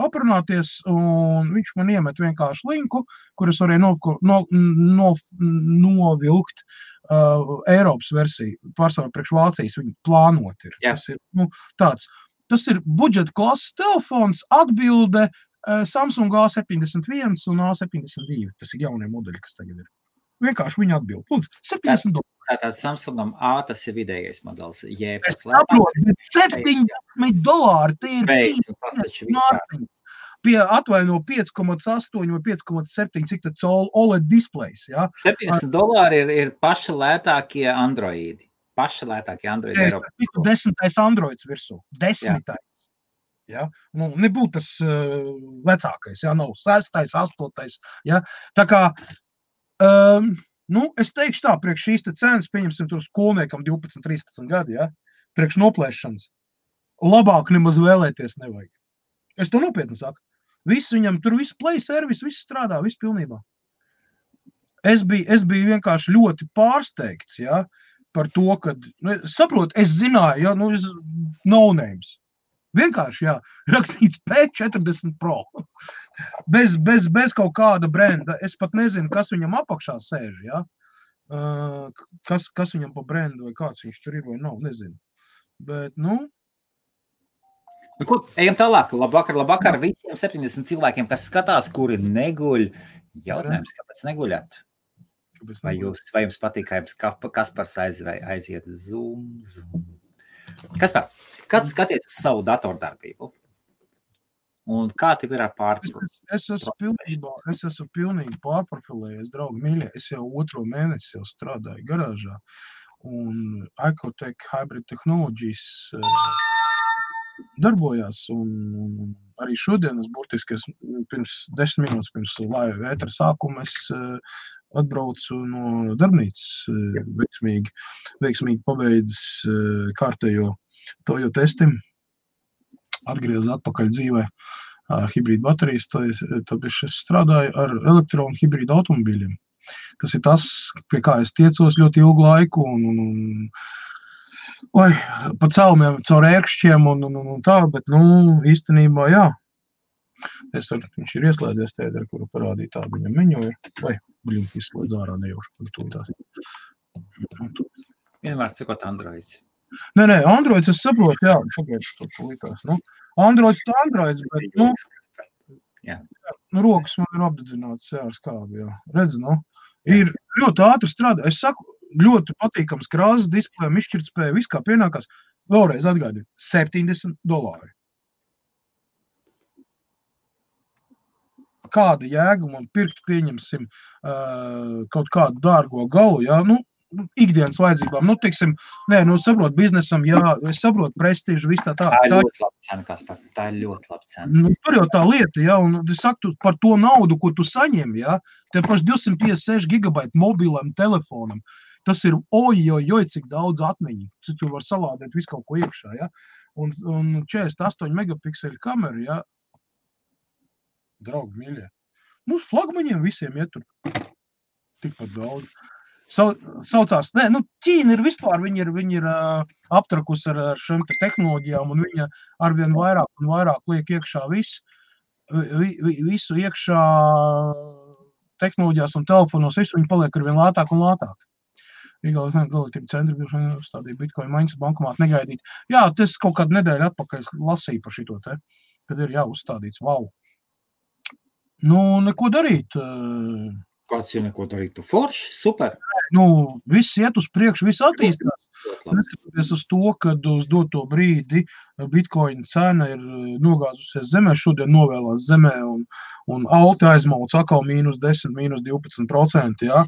[SPEAKER 1] aprunāties, un viņš man iemet vienkārši linku, kur es varēju novilkt Eiropas versiju, pārsvarā priekš Vācijas, viņi plānot ir. Tas ir, tāds. Tas ir budžeta klases telefons, atbilde Samsung A71 un A72. Tas ir jaunie modeļi, kas tagad ir. Vienkārši viņi atbild. Lūdzu, $70.
[SPEAKER 2] Tātad Samsungam A tas ir vidējais modelis.
[SPEAKER 1] Es saprotu, bet $70, tie ir mārciņas. Atvaino 5,8 vai 5,7, cik tad OLED displejs, jā?
[SPEAKER 2] $70 ir paši lētākie Androidi. Eiropā.
[SPEAKER 1] 10. Androids virsū. 10. Ja? Nebūtu tas vecākais, ja? Nav 6. 8. Ja? Tā kā, es teikšu tā, priekš šīs te cenas, pieņemsim tur skolniekam 12, 13 gadi, ja? Priekš noplēšanas. Labāk nemaz vēlēties nevajag. Es to nopietni saku. Viss viņam, tur viss play service, viss strādā, viss pilnībā. es biju vienkārši ļoti pārsteigts, ja, par to, ka, saprotu, es zināju, ja, es no names. Vienkārši, jā, rakstīts P40 Pro. Bez kaut kāda brenda. Es pat nezinu, kas viņam apakšā sēž, jā. Kas viņam pa brendu vai kāds viņš tur ir vai nav, nezinu. Bet,
[SPEAKER 2] Ko, ejam tālāk. Labvakar visiem 70 cilvēkiem, kas skatās, kuri neguļ. Jautājums, kāpēc neguļat? Vai jums patīk, kā jums Kaspars aiziet Zoom? Kaspar, kad skaties uz savu datordarbību? Un kā tev ir ar pārprofilu?
[SPEAKER 1] Es esmu pilnīgi pārprofilējies, draugi mīļie. Es jau 2. mēnesi jau strādāju garāžā. Un Icotech Hybrid Technologies darbojās. Un arī šodien es burtiski pirms 10 minūtes pirms laiva ētera sākuma es atbraucu no darbnīcas veiksmīgi pabeidzis kārtējo tojo testi, atgriezis atpakaļ dzīvē hibrīdu baterijas, tad es strādāju ar elektronu hibrīdu automobīļiem. Tas ir tas, pie kā es tiecos ļoti ilgu laiku un pa celmiem caur ērkšķiem un tā, bet, īstenībā, jā. Viņš ir ieslēdzies tēderi, kuru parādīja tādu viņam meņu ir. Vai, izslēdz ārā nejauši par to tās.
[SPEAKER 2] Vienmēr cikot Androids.
[SPEAKER 1] Nē, Androids es saprotu, jā, pagaidu, to likās. Androids, bet, rokas man ir apdedzināts, jā, ar skābi, jā. Redz, ir ļoti ātri strādā. Es saku, ļoti patīkams krāsas, displejam, izšķirtspēja, viss kā pienākās. Vēlreiz atgādinu, $70. Kāda jēga man pirkt, pieņemsim, kaut kādu dārgo galu, jā, ikdienas vajadzībām, saprot biznesam, jā, es saprotu prestižu, viss tā.
[SPEAKER 2] Tā ir ļoti laba cena, Kaspar, tā ir ļoti laba cena.
[SPEAKER 1] Tur jau tā lieta, jā, un es saku, par to naudu, ko tu saņem, jā, te paši 256 gigabaiti mobilam telefonam, tas ir cik daudz atmiņu, tu var salādēt visu kaut ko iekšā, jā, un 48 megapikseli kamera, jā, draugi mīļie. Mums flagmaņiem visiem iet tur tikpat daudz. Saucās, Ķīna ir vispār, viņi ir aptrakus ar šiem tehnoloģijām, un viņa arvien vairāk un vairāk liek iekšā visu iekšā tehnoloģijās un telefonos, visu viņi paliek arvien lētāk un lētāk. Galītība centri bija uzstādīja Bitcoin maiņas bankomātu negaidīt. Jā, tas kaut kādu nedēļu atpakaļ lasīju par šito te, kad ir uzstādīts, wow. Neko darīt.
[SPEAKER 2] Kāds ir neko darīt? Tu forši? Super.
[SPEAKER 1] Viss iet uz priekšu, viss attīstās. Neskatoties uz to, kad uz doto brīdi Bitcoin cena ir nogāzusies zemē, šodien novēlās zemē un alti aizmauc atkal -10, -12%, jā.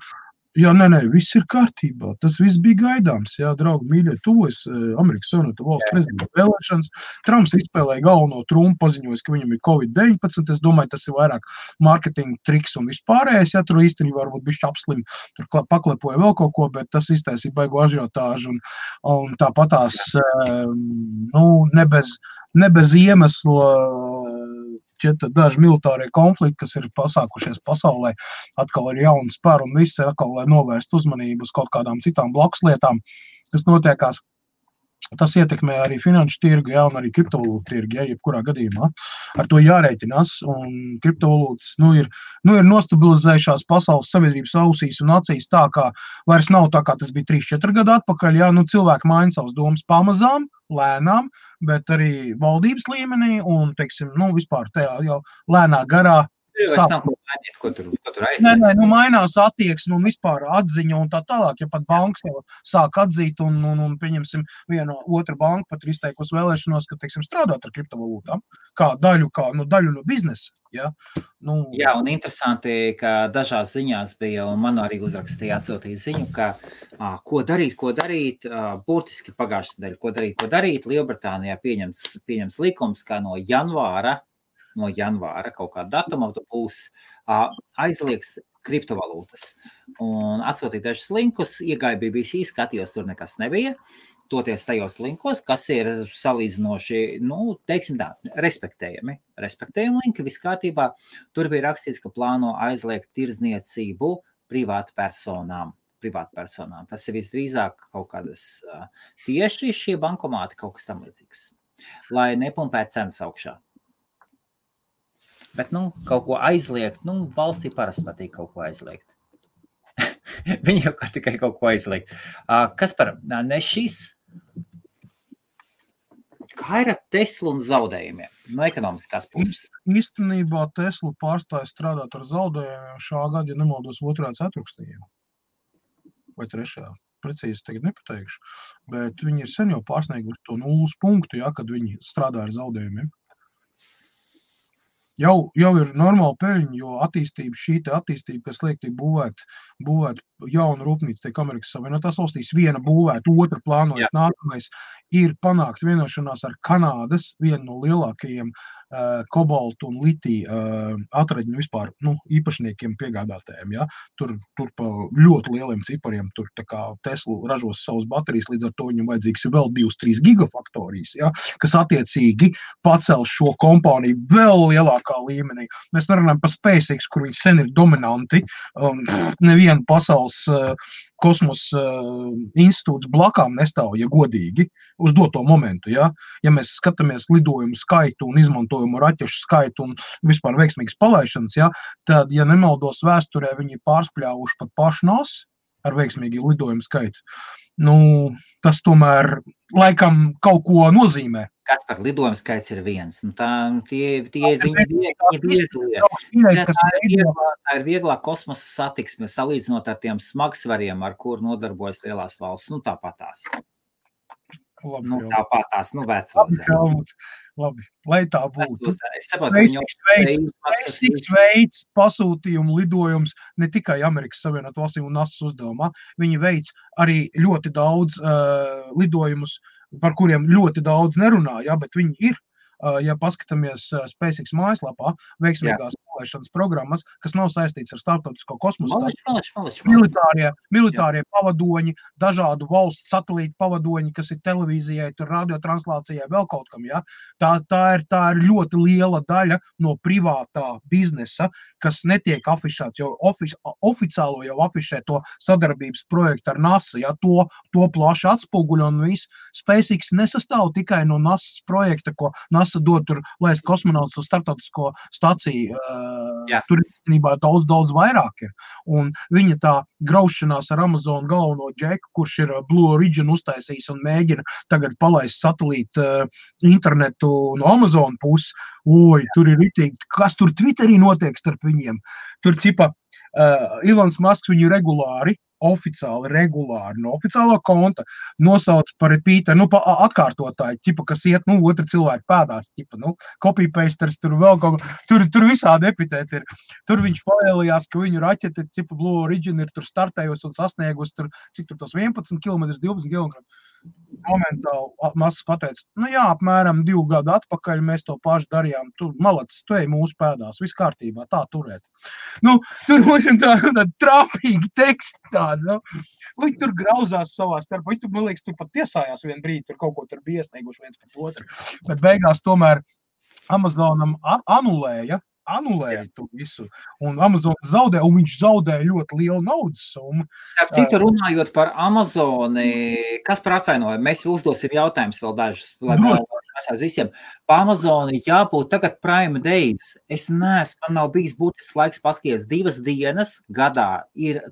[SPEAKER 1] Jā, nē, viss ir kārtībā. Tas viss bija gaidāms, jā, draugi, mīļie, tuvojas Amerikas Savienoto Valstu prezidenta vēlēšanas. Trumps izspēlēja galveno Trumpu, paziņojis, ka viņam ir COVID-19. Es domāju, tas ir vairāk marketinga triks un vispārējais. Jā, tur īstenībā varbūt bišķi apslim, tur paklepoja vēl kaut ko, bet tas iztaisīja baigu ažiotāžu un tāpatās, ne bez iemesla. Daži militārie konflikti, kas ir pasākušies pasaulē, atkal ir jauni spēri un visi atkal, lai novērst uzmanību uz kaut kādām citām blakus lietām, kas notiekās. Tas ietekmē arī finanšu tirgu, jā, un arī kriptovalūtu tirgu, jā, jebkurā gadījumā. Ar to jārēķinās, un kriptovalūtas, ir nostabilizējušās pasaules sabiedrības ausīs un acīs tā, kā vairs nav tā, kā tas bija 3-4 gadu atpakaļ, jā, cilvēki maina savas domas pamazām, lēnām, bet arī valdības līmenī un, teiksim, vispār tajā jau lēnā garā.
[SPEAKER 2] Ko tur aizsniedz?
[SPEAKER 1] Nē, mainās attieksme un vispār atziņa un tā tālāk, ja pat bankas jau sāk atzīt un pieņemsim vienu otru banku pat ir izteikusi vēlēšanos, ka, teiksim, strādāt ar kriptovalūtām, kā daļu no biznesa, ja?
[SPEAKER 2] Jā, un interesanti, ka dažās ziņās bija, un man arī uzrakstīja atsūtīja ziņu, ka ko darīt, burtiski pagājušajā nedēļā, ko darīt, Lielbritānijā pieņems likums, kā no janvāra kaut kāda datuma būs aizliegs kriptovalūtas. Un atsūtīja dažus linkus, iegāja BBC, skatījos, tur nekas nebija. Toties tajos linkos, kas ir salīdzinoši, teiksim tā, respektējami linki, viss kārtībā. Tur bija rakstīts, ka plāno aizliegt tirdzniecību privātpersonām. Tas ir visdrīzāk kaut kādas tieši šie bankomāti, kaut kas tam līdzīgs, lai nepumpētu cenas augšā. Bet, kaut ko aizliegt, valstī parasti patīk kaut ko aizliegt. Viņi jau tikai kaut ko aizliegt. Kas par ne šis? Kā ir ar Teslu un zaudējumiem no ekonomiskās puses?
[SPEAKER 1] Īstenībā Tesla pārstāja strādāt ar zaudējumiem šā gada, ja nemaldos, 2. ceturksnī. Vai 3. Precīzi tagad nepateikšu. Bet viņi ir sen jau pārsnieguši to 0 punktu, kad viņi strādā ar zaudējumiem. Jau ir normāla peļņa, jo šī attīstība, kas liek tiek būvēt jaunu rūpnīcu, tiek Amerikas Savienotās valstīs, viena būvēt, otra plānojas, nākamais ir panākt vienošanās ar Kanādas, vienu no lielākajiem kobaltu un litiju atraģņu vispār, īpašniekiem piegādātājiem, tur pa ļoti lieliem cipariem, tur tā kā Tesla ražos savas baterijas, līdz ar to viņam vajadzīgs ir vēl 2-3 gigafaktorijas, kas attiecīgi pacels šo kompāniju vēl lielākā līmenī. Mēs nerunājam par SpaceX, kur viņi sen ir dominanti, nevienu pasaules kosmosa institūts blakām nestāv, ja godīgi, uz doto momentu, Ja mēs skatāmies lidojumu skaitu un izmantojumu raķešu skaitu un vispār veiksmīgas palaišanas, tad, ja nemaldos vēsturē, viņi pārspļāvuši pat pašu NASA ar veiksmīgu lidojumu skaitu. Tas tomēr laikam kaut ko nozīmē.
[SPEAKER 2] Kas par lidojumu skaits ir viens? Tie ir vieglie. Tā ir vieglā kosmosa satiksme, salīdzinot ar tiem smagsvariem, ar kur nodarbojas lielās valsts. Tāpatās. Tāpatās,
[SPEAKER 1] Labi, lai tā būtu.
[SPEAKER 2] Es saprotu,
[SPEAKER 1] SpaceX veids pasūtījumu lidojums ne tikai Amerikas Savienotās valstīm un NASA uzdevumā. Viņi veids arī ļoti daudz lidojumus, par kuriem ļoti daudz nerunā, bet viņi ir. Ja paskatāmies SpaceX mājaslapā, veiksmīgās palaišanas programmas, kas nav saistīts ar starptautisko kosmosa militārie pavadoņi, dažādu valstu satelītu pavadoņi, kas ir televīzijai, tur radiotranslācijai, vēl kaut kam, Tā ir ļoti liela daļa no privātā biznesa, kas netiek afišēts, jo oficiālo jau afišē to sadarbības projektu ar NASA, to plaši atspoguļo un viss. SpaceX nesastāv tikai no NASA projekta, ko NASA dod tur, laist kosmonautus uz starptautisko staciju. Tur īstenībā daudz vairāk ir. Un viņa tā graušanās ar Amazon galveno džeku, kurš ir Blue Origin uztaisījis un mēģina tagad palaist satelītu internetu no Amazon puses. Tur ir ritīgi, kas tur Twitterī notiek starp viņiem. Tur Elons Musks viņu regulāri no oficiālā konta nosauc par repeateru, pa atkārtotāju, kas iet, otru cilvēku pēdās, copy-pasters, tur vēl kaut ko, tur visādi epitēti ir. Tur viņš palielījās, ka viņu raķete, Blue Origin ir tur startējusi un sasniegusi tur, cik tur tos 11 km, 12 km. Momentāli Musks pateica, apmēram 2 gadu atpakaļ mēs to pašu darījām, tu malacis, tu ej mūsu pēdās, viss kārtībā, tā turēt. Tur mums ir tāda trāpīgi teksti tādi, Viņi tur grauzās savā starpā, viņi tur, man liekas, tur pat tiesājās vienu brīdi, tur kaut ko tur bija iesnieguši viens pret otru, bet beigās tomēr Amazonam anulēja to visu, un Amazon zaudē, un viņš zaudēja ļoti lielu naudas summu.
[SPEAKER 2] Starp citu, runājot par Amazoni, kas par atvainojumu? Mēs uzdosim jautājumus vēl dažus, lai mēs visiem. Pa Amazoni jābūt tagad Prime Days. Es neesmu, man nav bijis būtisks laiks paskaties 2 dienas gadā.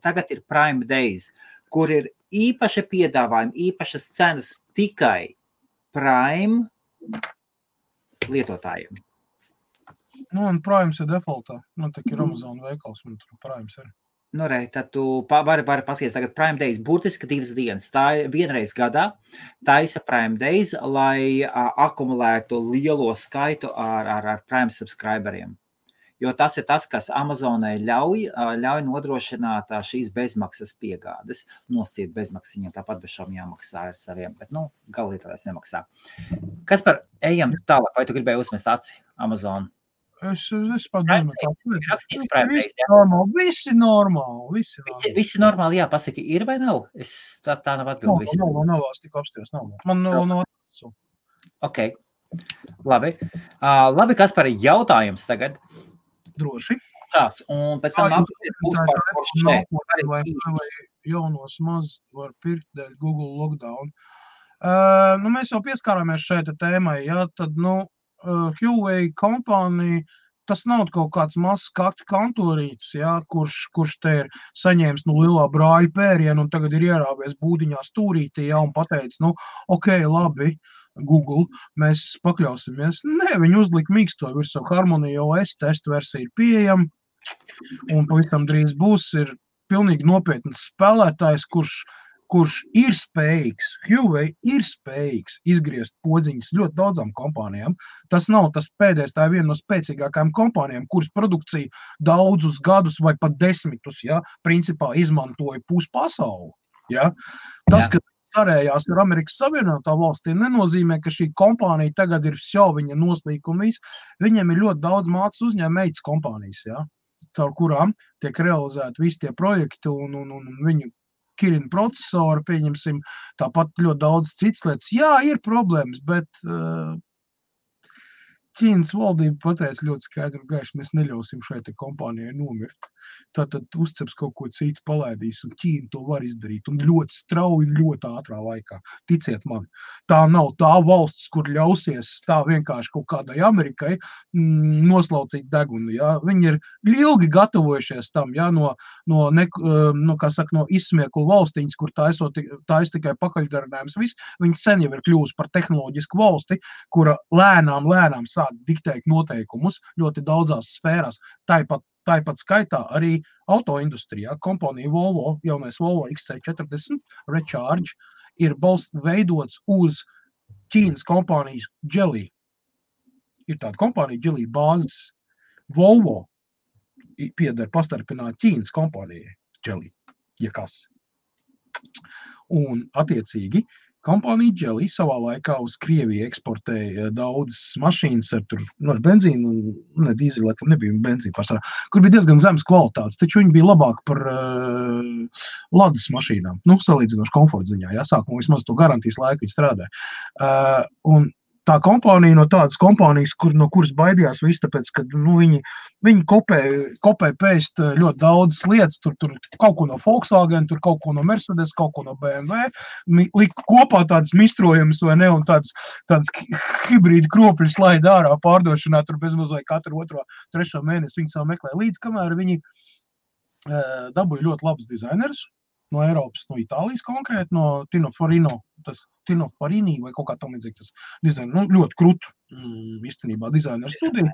[SPEAKER 2] Tagad ir Prime Days, kur ir īpaši piedāvājumi, īpašas cenas tikai Prime lietotājiem.
[SPEAKER 1] Un Primes ir defaultā. Man tā ir Amazon veikals, un tur Primes ir.
[SPEAKER 2] Tad tu vari paskatīties tagad Prime Days, burtiski 2 dienas. Tā ir vienreiz gadā, taisa Prime Days, lai akumulētu lielo skaitu ar Prime subscriberiem. Jo tas ir tas, kas Amazonai ļauj nodrošināt šīs bezmaksas piegādes. Nosciet bezmaksas, viņam tāpat bez šām jāmaksā ar saviem, bet, galvlietotājs nemaksā. Kas par ejam tālāk, vai tu gribēji uzmest aci Amazon?
[SPEAKER 1] Es padomāju, Visi normāli.
[SPEAKER 2] Visi normāli, jā, pasaki, ir vai nav? Tā nav atbildi.
[SPEAKER 1] Nav, tik apsties, nav. Man nav atbildi.
[SPEAKER 2] Ok, labi. Labi, kas par jautājums tagad?
[SPEAKER 1] Droši.
[SPEAKER 2] tāds, un pēc tam nākamais būs par Porsche.
[SPEAKER 1] Vai jaunos maz var pirkt dēļ Google lockdown. Mēs jau pieskārāmies šeit tēmai, jā, tad, Huawei kompānija, tas nav kaut kāds mazs kantorītis, jā, kurš te ir saņēmis lielā brāļa pērienu un tagad ir ierāvies būdiņā stūrītī, jā, un pateicis, ok, labi, Google, mēs pakļausimies. Nē, viņi uzlika mīksto virsū Harmony OS, testa versija ir pieejama, un pavisam drīz būs, ir pilnīgi nopietns spēlētājs, kurš ir spējīgs, Huawei ir spējīgs izgriezt podziņas ļoti daudzām kompānijām. Tas nav tas pēdējais, tā ir viena no spēcīgākajām kompānijām, kuras produkciju daudzus gadus vai pat 10, ja, principā izmantoja puspasauli. Ja. Tas, ka sarējās ar Amerikas Savienotā valstīm, nenozīmē, ka šī kompānija tagad ir viņa noslīkuma viss. Viņiem ir ļoti daudz mācas uzņēmējas kompānijas, ja, caur kurām tiek realizēti visi tie projekti un viņu Kirin procesori, pieņemsim, tāpat ļoti daudz citas lietas. Jā, ir problēmas, bet Ķīnas valdība pateica ļoti skaidri un gaiši, mēs neļausim šai te kompānijai nomirt. Tātad uzceps kaut ko citu palaidīs, un Ķīna to var izdarīt, un ļoti strauji, ļoti ātrā laikā. Ticiet man, tā nav tā valsts, kur ļausies tā vienkārši kaut kādai Amerikai noslaucīt degunu. Ja? Viņi ir ilgi gatavojušies tam, ja? no izsmieklu valstiņas, kur tais tikai pakaļdarinājums viss. Viņi sen jau ir kļūst par tehnoloģisku valsti, kura lēnām sāk diktēt noteikumus ļoti daudzās sfērās. Tāpat skaitā arī autoindustrijā. Kompānija Volvo, jaunais Volvo XC40 Recharge ir veidots uz Ķīnas kompānijas Geely. Ir tāda kompānija Geely bāzes. Volvo pieder pastarpināt Ķīnas kompānijai Geely, ja kas. Un attiecīgi kompānija Geely savā laikā uz Krieviju eksportēja daudzas mašīnas ar benzīnu, ne dīzeli, laikam nebija benzīna pārsvarā, kur bija diezgan zemes kvalitātes, taču viņi bija labāk par Ladas mašīnām, salīdzinoši komforta ziņā, jā, sākumā vismaz to garantijas laiku viņi strādāja. Un tā kompānija no tādas kompānijas, no kuras baidījās visu, tāpēc, ka viņi kopē pēst ļoti daudzas lietas, tur kaut ko no Volkswagen, tur kaut ko no Mercedes, kaut ko no BMW, lika kopā tādas mistrojumus vai ne, un tādas hibrīdi kropļus laida ārā pārdošanā, tur bezmaz vai katru 2. 3. mēnesi viņi savu meklē līdz, kamēr viņi dabūja ļoti labus dizainerus no Eiropas, no Itālijas konkrēti, no Tino Farini vai kaut kā tam līdzīgi tas dizaina, ļoti krūtu īstenībā dizaineru studiju.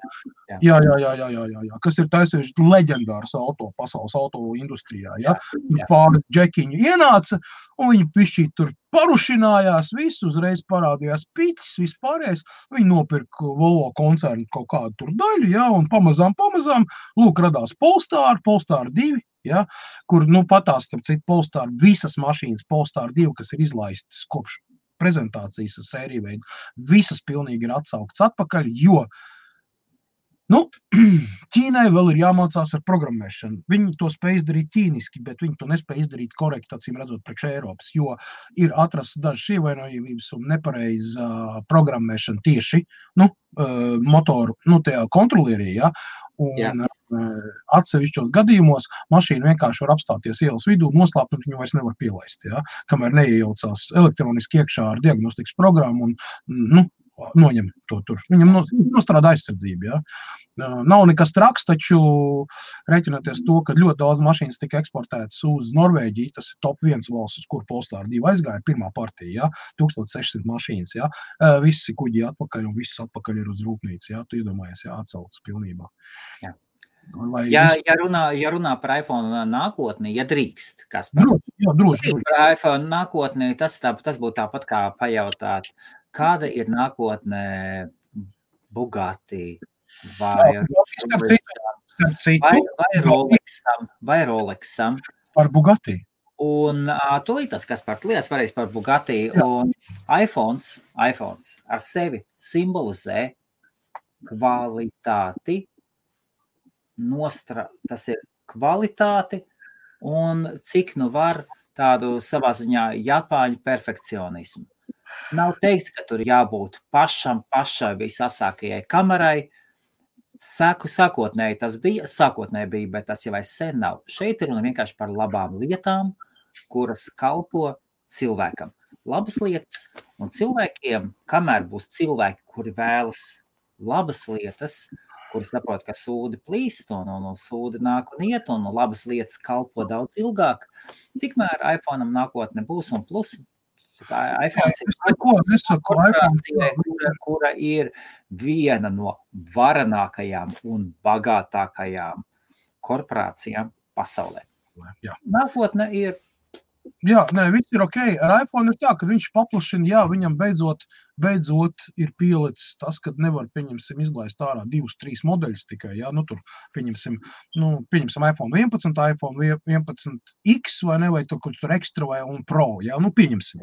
[SPEAKER 1] Jā, kas ir taisījuši leģendārs pasaules auto industrijā, ja. Pāris džekiņu ienāca, un viņi pišķīt tur parušinājās, visu uzreiz parādījās piķis, vispārējais, viņi nopirka Volvo koncernu kaut kādu tur daļu, ja, un pamazām, lūk, radās Polestar 2, ja, kur, patās, starp citu, Polestar, visas mašīnas Polestar 2, kas ir izlaistas kopš prezentācijas sēriju veidu, visas pilnīgi ir atsauktas atpakaļ, jo, Ķīnai vēl ir jāmācās ar programmēšanu. Viņi to spēj izdarīt ķīniski, bet viņi to nespēj izdarīt korekti, acīm redzot, priekš Eiropas, jo ir atrasts dažas ievainojamības un nepareiza programmēšana tieši, motoru, tajā kontrolierī, ja, un atsevišķos gadījumos mašīna vienkārši var apstāties ielas vidū, noslēpt, un viņu vairs nevar pielaist, ja, kamēr neiejaucās elektroniski iekšā ar diagnostikas programmu un, noņem to tur. Viņam nostrādā aizsardzība, ja. Nav nekas traks, taču rēķināties to, ka ļoti daudz mašīnas tika eksportētas uz Norvēģiju, tas ir top 1 valsts, uz kur Polestar 2 aizgāja, pirmā partija, ja, 1600 mašīnas, ja, visi kuģi atpakaļ un viss atpakaļ ir uz rūpnīcu, ja, tu iedomājies, ja, atsaucas pilnībā.
[SPEAKER 2] Jā. Ja runā par iPhone nākotni, ja drīkst, kas
[SPEAKER 1] droši.
[SPEAKER 2] Par iPhone nākotni, tas būtu tāpat kā pajautāt, kāda ir nākotne Bugatti vai Rolexam?
[SPEAKER 1] Par Bugatti.
[SPEAKER 2] Un tūlītas, kas par lietas varēs par Bugatti, un iPhones ar sevi simbolizē kvalitāti, tas ir kvalitāti un cik var tādu savā ziņā Japāņu perfekcionismu. Nav teikts, ka tur jābūt pašai visasākajai kamerai. Sākotnēji tas bija, bet tas jau sen nav. Šeit ir runa vienkārši par labām lietām, kuras kalpo cilvēkam. Labas lietas, un cilvēkiem, kamēr būs cilvēki, kuri vēlas labas lietas, kuri saprot, ka sūdi plīst, un sūdi nāk un iet, un labas lietas kalpo daudz ilgāk, tikmēr iPhone'am nākotne būs, un plus iPhone kura ir viena no varenākajām un bagātākajām korporācijām pasaulē.
[SPEAKER 1] Jā.
[SPEAKER 2] Nākotne ir.
[SPEAKER 1] Jā, viss ir ok. Ar iPhone ir tā, ka viņš paplašina, viņam beidzot ir pielicis tas, kad nevar, izlaist ārā 2-3 modeļus tikai, tur pieņemsim iPhone 11, iPhone 11X vai tur Extra vai un Pro, pieņemsim,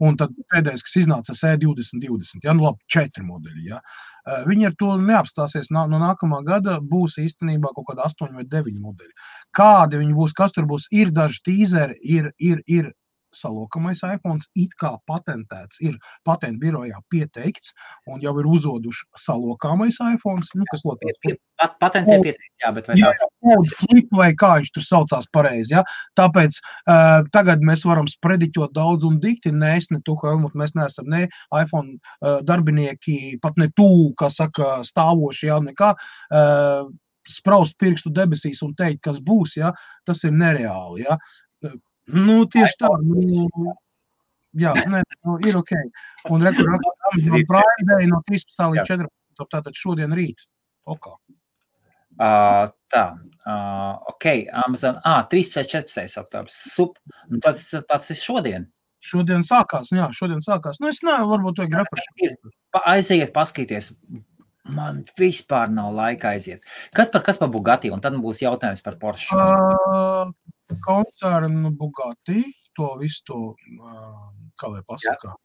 [SPEAKER 1] un tad pēdējais, kas iznāca E2020, labi, 4 modeļi, Viņi ar to neapstāsies, no nākamā gada būs īstenībā kaut kāda 8 vai 9 modeļi. Kādi viņi būs, kas tur būs, ir daži tīzeri, ir salokamais iPhones, it kā patentēts, ir patentu birojā pieteikts, un jau ir uzoduši salokāmais iPhones, kas lotās.
[SPEAKER 2] Patents ir pieteikts, bet vai tāds?
[SPEAKER 1] Flip vai kā viņš tur saucās pareizi, Tāpēc tagad mēs varam sprediķot daudz un dikti, ne tu, Helmut, mēs neesam ne iPhone darbinieki, pat ne tu, kā saka, stāvoši, nekā, spraust pirkstu debesīs un teikt, kas būs, tas ir nereāli, Tieši tā, ir ok. Un Prime Day no 13. līdz 14. Tātad šodien rīt.
[SPEAKER 2] Ok, Amazon, 13. oktobrs, tas ir šodien.
[SPEAKER 1] Šodien sākās. Es varbūt to refresh.
[SPEAKER 2] Aiziet, paskaties. Man vispār nav laika aiziet. Kas par Bugatti? Un tad būs jautājums par Porsche.
[SPEAKER 1] Koncernu Bugatti, to visu to, kā lai pasaka,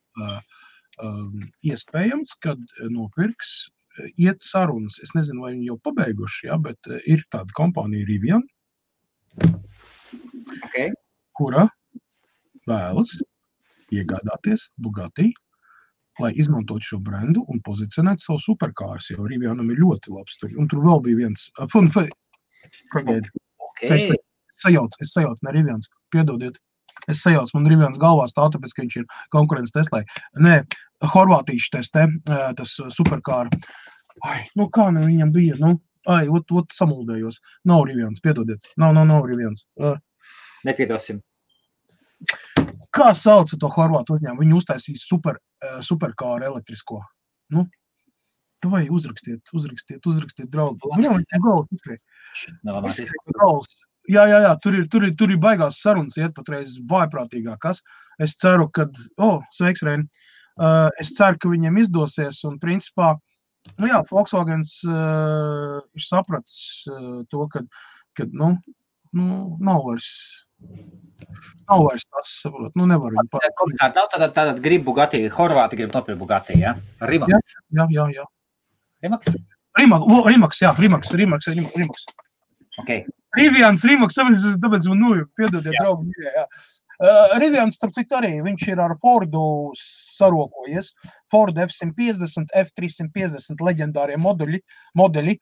[SPEAKER 1] iespējams, kad nopirks, iet sarunas. Es nezinu, vai viņi jau pabeiguši, bet ir tāda kompānija Rivian, kura vēlas iegādāties Bugatti, lai izmantot šo brendu un pozicionēt savu superkārs, jo Rivianam ir ļoti labs. Un tur vēl bija viens. Es sajaucu, ne Rivians, piedodiet. Es sajaucu, man Rivians galvā stāv, tāpēc, ka viņš ir konkurence Teslai. Nē, horvātīši tas superkāra. Kā viņam bija, ot samuldējos. Nav Rivians, piedodiet. Nav Rivians.
[SPEAKER 2] Nepiedosim.
[SPEAKER 1] Kā sauca to horvātu uzņēmumu? Viņi uztaisīja superkāru elektrisko. Vai uzrakstiet, draugi. Viņam ir gauls. Jā, tur ir baigās sarunas iet patreiz vājprātīgākas. Es ceru, ka, sveiks, Reini, es ceru, ka viņiem izdosies un principā, Volkswagens ir sapratis to, ka nav vairs tas, saprot, nevar viņu
[SPEAKER 2] pārēt. Tātad grib Bugatti, Horvāti grib nopirkt Bugatti, Rimax?
[SPEAKER 1] Jā.
[SPEAKER 2] Rimax?
[SPEAKER 1] Rimax.
[SPEAKER 2] Okay.
[SPEAKER 1] Rivians, tāpēc man nojūk, piedodiet, draugi. Rivians, starp citu arī, viņš ir ar Fordu sarokojies. Ford F-150, F-350 leģendārie modeļi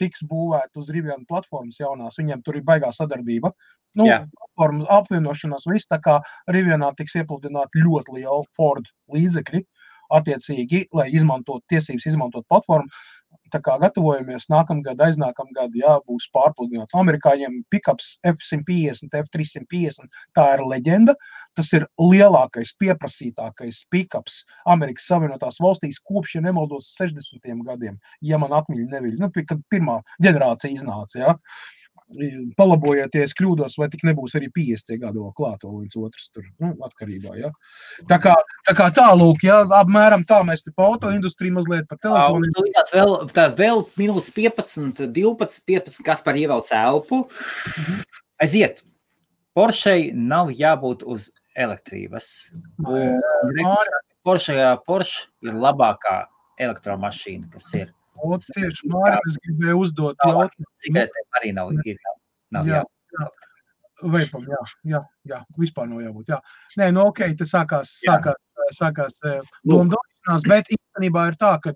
[SPEAKER 1] tiks būvēt uz Rivian platformas jaunās. Viņiem tur ir baigā sadarbība. Platformas apvienošanās viss, tā kā Rivianā tiks iepludināt ļoti liela Ford līdzekļi, attiecīgi, lai tiesības izmantot platformu. Tā kā gatavojamies nākamgad, aiznākamgad, būs pārpludināts. Amerikāņiem pickups F-150, F-350, tā ir leģenda. Tas ir lielākais, pieprasītākais pickups Amerikas Savienotās valstīs kopš, ja nemaldos, 60. gadiem, ja man atmiļa neviļ. Kad pirmā ģenerācija iznāca, palabojieties, kļūdos, vai tik nebūs arī 50 gadu vēl klāt, vēl viens otrs tur, atkarībā, Tā kā tālūk, apmēram tā mēs te pa autoindustriju mazliet par telefonu.
[SPEAKER 2] Vēl minūtes 15, 12, kas par ievelc elpu. Aiziet. Porschei nav jābūt uz elektrības. Porsche ir labākā elektromašīna, kas ir.
[SPEAKER 1] Tieši Mārim es gribēju uzdot jautājumu.
[SPEAKER 2] Cigaretēm arī nav jābūt.
[SPEAKER 1] Veipam, jā, vispār nav jābūt, Nē, ok, tas sākās domdošanās, bet īstenībā ir tā, ka,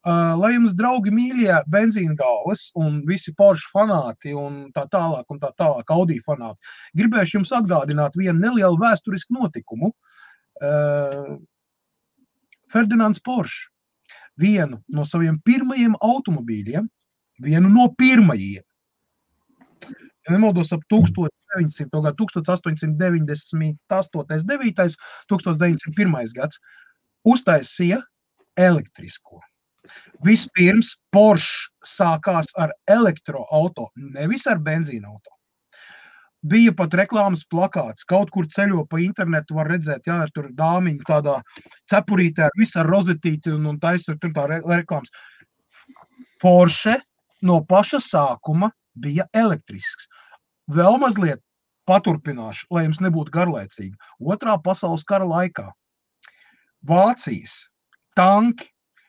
[SPEAKER 1] lai jums, draugi mīļie, benzīna galvas un visi Porsche fanāti un tā tālāk Audi fanāti, gribēšu jums atgādināt vienu nelielu vēsturisku notikumu. Ferdinands Porsche vienu no saviem pirmajiem automobīļiem, vienu no pirmajiem, ja nemaldos ap 1898, 9. 1901. gads, uztaisīja elektrisko. Vispirms Porsche sākās ar elektroauto, nevis ar benzīna auto. Bija pat reklāmas plakāts, kaut kur ceļo pa internetu var redzēt, jā, tur dāmiņi tādā cepurītē ar visu ar rozetīti un taisot tur tā reklāmas. Porsche no paša sākuma bija elektrisks. Vēl mazliet paturpināšu, lai jums nebūtu garlaicīgi. Otrā pasaules kara laikā Vācijas tanki,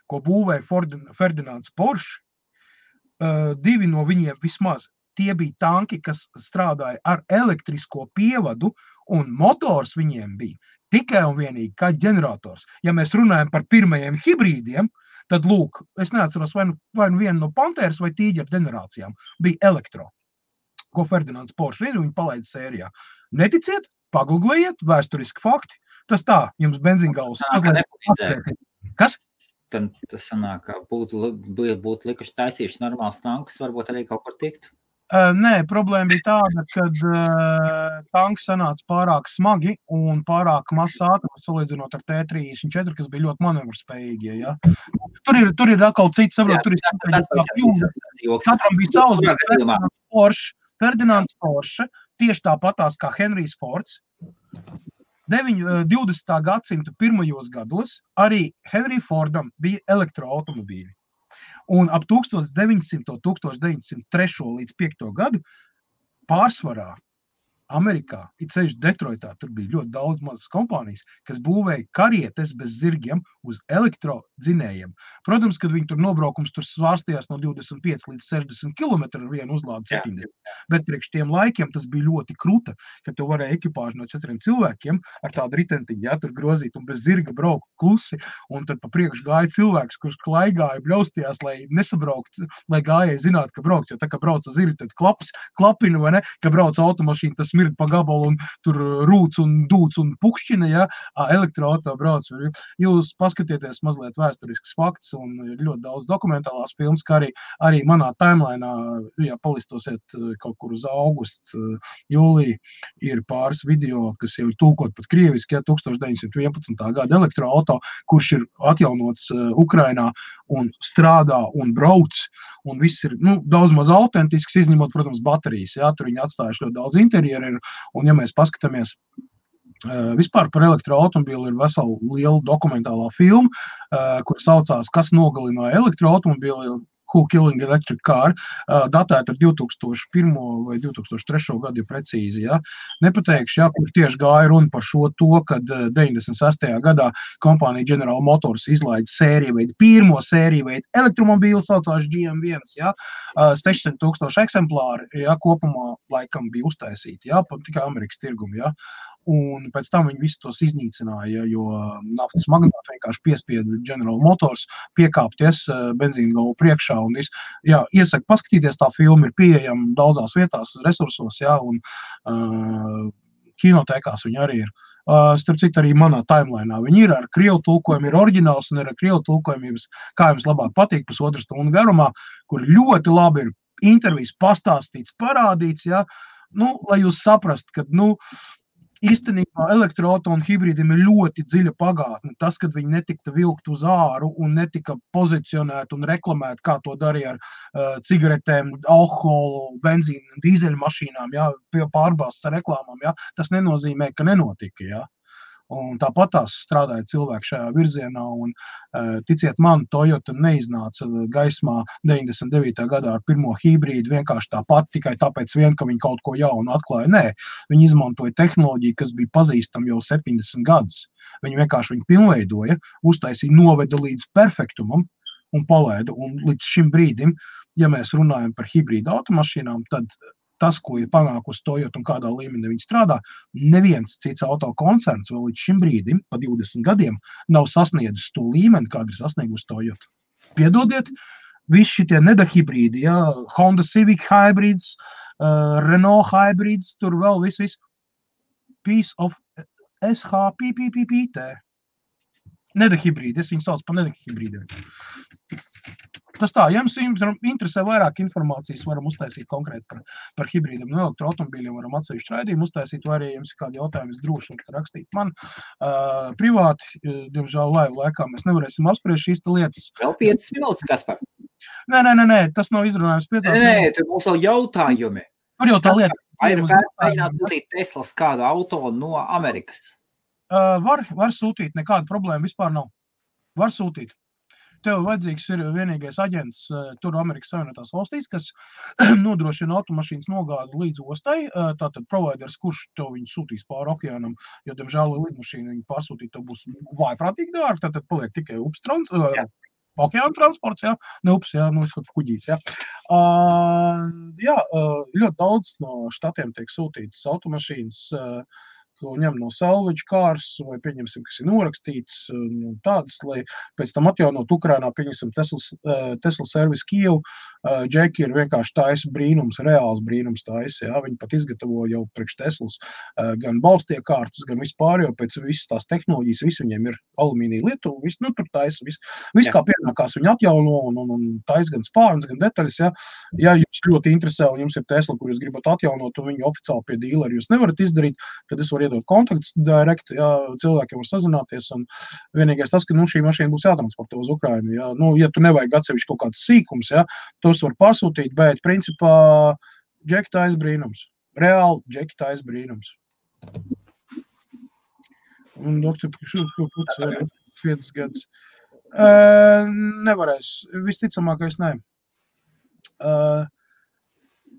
[SPEAKER 1] ko būvēja Ferdinands Porsche, divi no viņiem vismaz, tie bija tanki, kas strādāja ar elektrisko pievadu, un motors viņiem bija tikai un vienīgi kā ģenerators. Ja mēs runājam par pirmajiem hibrīdiem, tad lūk, es neatceros vai nu vienu no Pantēras vai Tīģera ģenerācijām bija elektro, ko Ferdinands Porsche viņa palaida sērijā. Neticiet, pagooglējiet, vēsturiski fakti, tas tā, jums benzīngauls. Kas?
[SPEAKER 2] Tad tas sanāk, ka būtu likuši taisījuši normāls tankus, varbūt arī kaut kur tiktu.
[SPEAKER 1] Nē, problēma bija tāda, kad tanki sanāca pārāk smagi un pārāk mazs ātrums salīdzinot ar T34, kas bija ļoti manevrspējīgie. Ja? Tur ir atkal cits, saprot, tur ir katram bija savs, Ferdinands Porsche, tieši tāpatās kā Henrijs Fords. 20. gadsimta pirmajos gados arī Henry Fordam bija elektroautomobīļi. Un ap 1903. līdz 5. gadu pārsvarā Amerikā, it sevišķi Detroitā, tur bija ļoti daudz mazas kompānijas, kas būvēja karietes bez zirgiem uz elektrodzinējiem. Protams, kad viņi tur nobraukums tur svārstījās no 25 līdz 60 km ar vienu uzlādi 70. Bet priekš tiem laikiem tas bija ļoti kruta, kad tu varēja ekipāžu no 4 cilvēkiem ar tādu ritentiņu, ja, tur grozīt un bez zirga braukt klusi, un tad pa priekš gāja cilvēks, kurš klaigāja, bļaustījās, lai nesabraukt, lai gājēji zinātu, ka brauks, jo tā, ka brauc zirgi, tad klapina, vai ne, ka brauc automašīna, tas smird pa gabalu un tur rūc un dūc un pukšķina, ja, elektroauto brauc. Jūs paskatieties mazliet vēsturisks fakts un ir ļoti daudz dokumentālās filmas, kā arī manā timelainā, ja palistosiet kaut kur uz augustu, jūliju, ir pāris video, kas jau ir tūkot pat krieviski, ja, 1911. gada elektroauto, kurš ir atjaunots Ukrainā un strādā un brauc, un viss ir, daudz maz autentisks, izņemot, protams, baterijas, ja, tur viņi atstājuši ļoti daudz interjeru, un ja mēs paskatāmies vispār par elektroautomobīlu, ir vesela liela dokumentālā filma, kur saucās, kas nogalināja elektroautomobīlu, Who Killing Electric Car, datēta ar 2001. vai 2003. gadu, ja precīzi, ja. Nepateikšu, ja, kur tieši gāja runa par šo to, kad 96. gadā kompānija General Motors izlaida pirmo sēriju veidu elektromobīlu, saucās GM1, ja, 600,000 eksemplāri, ja, kopumā laikam bija uztaisīti, ja, tikai Amerikas tirgumi, ja. Un pēc tam viņi visus tos iznīcināja, jo naftas magnāti vienkārši piespieda General Motors piekāpties benzīna galvu priekšā un viss. Jā, iesaku paskatīties, tā filma ir pieejama daudzās vietās, resursos, jā, un kinotēkās viņi arī ir. Starp citu, arī manā timelainā viņi ir ar krievu tulkojumu, ir oriģināls un ir ar krievu tulkojumu, kā jums labāk patīk, pusotru stundu garumā, kur ļoti labi ir intervijas pastāstīts, parādīts, jā, lai jūs saprast, ka, īstenībā elektroauto un hibrīdiem ir ļoti dziļa pagātne. Tas, kad viņi netika vilkt uz āru un netika pozicionēti un reklamēti, kā to darīja ar cigaretēm, alkoholu, benzīnu, dīzeļu mašīnām, jā, pārbāstas ar reklāmām, jā, tas nenozīmē, ka nenotika, jā. Un tāpat tās strādāja cilvēki šajā virzienā, un ticiet man, Toyota neiznāca gaismā 99. gadā ar pirmo hibrīdu vienkārši tāpat, tikai tāpēc vien, ka viņi kaut ko jaunu atklāja. Nē, viņi izmantoja tehnoloģiju, kas bija pazīstama jau 70 gadus. Viņi vienkārši viņu pilnveidoja, uztaisīja, noveda līdz perfektumam un palaida. Un līdz šim brīdim, ja mēs runājam par hibrīdu automašīnām, tad tas, ko ir panākusi Toyota un kādā līmenī viņi strādā, neviens cits autokoncerns vēl līdz šim brīdim, pa 20 gadiem, nav sasniedzis to līmeni, kādu ir sasniegusi Toyota. piedodiet, visi šitie nedahibrīdi, ja, Honda Civic hybrids, Renault hybrids, tur vēl viss, piece of SHPPPT. Nedahibrīdi, es viņu sauc par nedahibrīdiem. Tas tā, ja jums interesē vairāk informācijas, varam uztaisīt konkrēti par hibrīdiem no elektroautomobīļiem, varam atsevišķu raidījumu uztaisīt, vai arī jums ir kādi jautājumi, droši varat rakstīt man privāti, diemžēl laivu laikā mēs nevarēsim apspriest šīs lietas.
[SPEAKER 2] Vēl 5 minūtes, Kaspar?
[SPEAKER 1] Nē, tas nav izrunājums 5 minūtes.
[SPEAKER 2] Nē, tur mums vēl jautājumi.
[SPEAKER 1] Tur jau tā lieta.
[SPEAKER 2] Vai ir kāds mēģināt sūtīt Teslas kādu auto no Amerikas?
[SPEAKER 1] Var sūtīt, nekāda problēma vispār nav. Var sūtīt. Tev vajadzīgs ir vienīgais aģents tur Amerikas Savienotās valstīs, kas nodrošina automašīnas nogādi līdz ostai, tātad providers, kurš tev viņu sūtīs pāri okeānam, jo, diemžēl, lidmašīnu viņu pārsūtīt, tev būs vājprātīgi dārgi, tātad paliek tikai okeāna transports, jā, ne ups, jā, kuģīts, jā. Ļoti daudz no štatiem tiek sūtītas automašīnas, ko ņem no salvage cars, vai pieņemsim, kas ir norakstīts, tādas, lai pēc tam atjaunot Ukrainā, pieņemsim Tesla Service Kievu, Džeki ir vienkārši taisa brīnums, reāls brīnums taisa, jā, viņi pat izgatavo jau priekš Teslas gan balstie kārtas, gan vispār, jo pēc visas tās tehnoloģijas, viss viņiem ir alumīnija lietu, viss, tur taisa, viss kā pienākās viņi atjauno un taisa gan spārns, gan detaļas, jā. Ja jums ļoti interesē un jums ir Tesla, kur jūs gribat atjaunot un viņu oficiāli pie dīleri jūs nevarat izdarīt, tad es varu iedot kontaktus direkt, jā, cilvēkiem var sazināties, un vienīgais tas, ka, šī mašīna būs jātransportē uz Ukrainu, jā, ja tu nevajag atsevišķi kaut kāds sīkums, jā, tos var pasūtīt, bet, principā, Džeki taisa brīnums. Reāli Džeki taisa brīnums. Un doktor, 5 gadus. Nevarēs, visticamākais ne.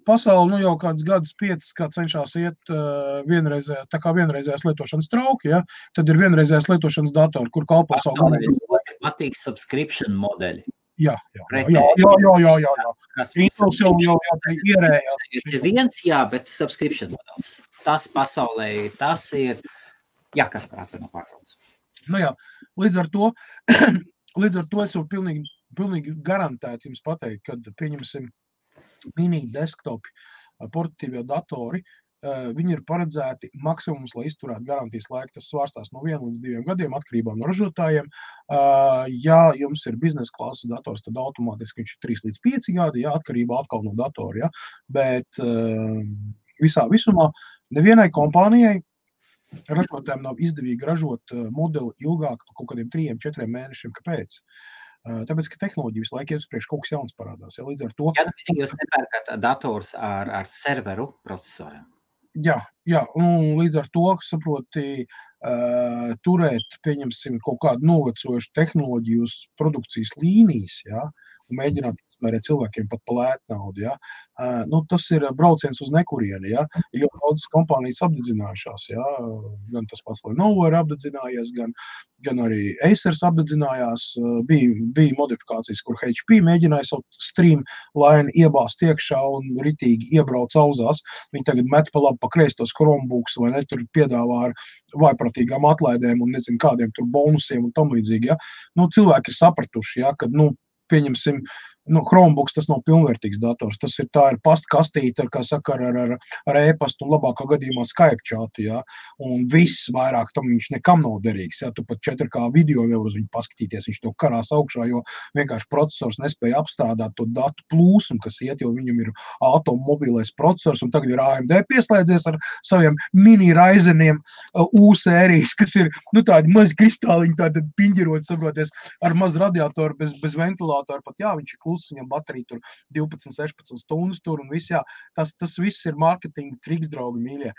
[SPEAKER 1] Pasauli, jau kāds gadus 5, kā cenšās iet vienreizējās lietošanas trauki, ja? Tad ir vienreizējās lietošanas datori, kur kalpo savu
[SPEAKER 2] galvu. Patīk subscription modeļi.
[SPEAKER 1] Jā.
[SPEAKER 2] Kas
[SPEAKER 1] Windows jau ierējās.
[SPEAKER 2] Ir viens, jā, bet subscription modelis. Tas pasaulē, tas ir, jā, kas prātā no pārtrauc.
[SPEAKER 1] Jā, līdz ar to es jau pilnīgi garantēti jums pateikt, kad pieņemsim mini desktopi, portatīvie datori, viņi ir paredzēti maksimums, lai izturētu garantijas laiku. Tas svārstās no 1 līdz 2 gadiem atkarībā no ražotājiem. Ja jums ir biznesa klases dators, tad automātiski viņš ir 3 līdz 5 gadi, jā, atkarībā atkal no datora. Ja? Bet visā visumā nevienai kompānijai ražotājiem nav izdevīgi ražot modeli ilgāk par kaut kādiem 3-4 mēnešiem. Kāpēc? Tāpēc, ka tehnoloģija visu laiku iet uz priekšu, kaut kas jauns parādās. Ja, līdz ar to...
[SPEAKER 2] Ja jūs nepērkat dators ar serveru procesoriem?
[SPEAKER 1] Jā, un līdz ar to, saproti, turēt, pieņemsim, kaut kādu novecojušu tehnoloģiju uz produkcijas līnijas, ja, un mēģināt izmērēt cilvēkiem pat pa lētu naudu, ja. Tas ir brauciens uz nekurieni, ja. Ir ļoti daudz kompānijas apdedzinājušās, ja. Gan tas pats Lenovo ir apdedzinājies, gan arī Acers apdedzinājās. Bija modifikācijas, kur HP mēģināja savu streamline iebāzt iekšā un ritīgi iebrauc auzās. Viņi tagad met pa labi pa kreistos Chromebooks vai ne, tur piedāvā ar vaipratīgām atlaidēm un nezinu kādiem tur bonusiem un tam līdzīgi, ja. Cilvēki ir sapratuši, ja, kad, pieņemsim, Chromebooks tas nav pilnvērtīgs dators, tas ir pastkastīte, kā saka, ar e-pastu un labākā gadījumā Skype chatu, ja, un viss vairāk tam viņš nekam nav derīgs, ja, tu pat 4K video nevar uz viņu paskatīties, viņš to karās augšā, jo vienkārši procesors nespēja apstrādāt to datu plūsmu, kas iet, jo viņam ir automobilais procesors, un tagad ir AMD pieslēdzies ar saviem mini Ryzeniem U sērijas, kas ir, tādi mazi kristāliņi, tādi piņģiroti, saproties, ar mazu radiatoru, bez ventilātoru, pat jā, viņš ir kluss, viņam baterija tur 12-16 stundas tur un viss, jā, tas viss ir marketinga triks, draugi mīļie.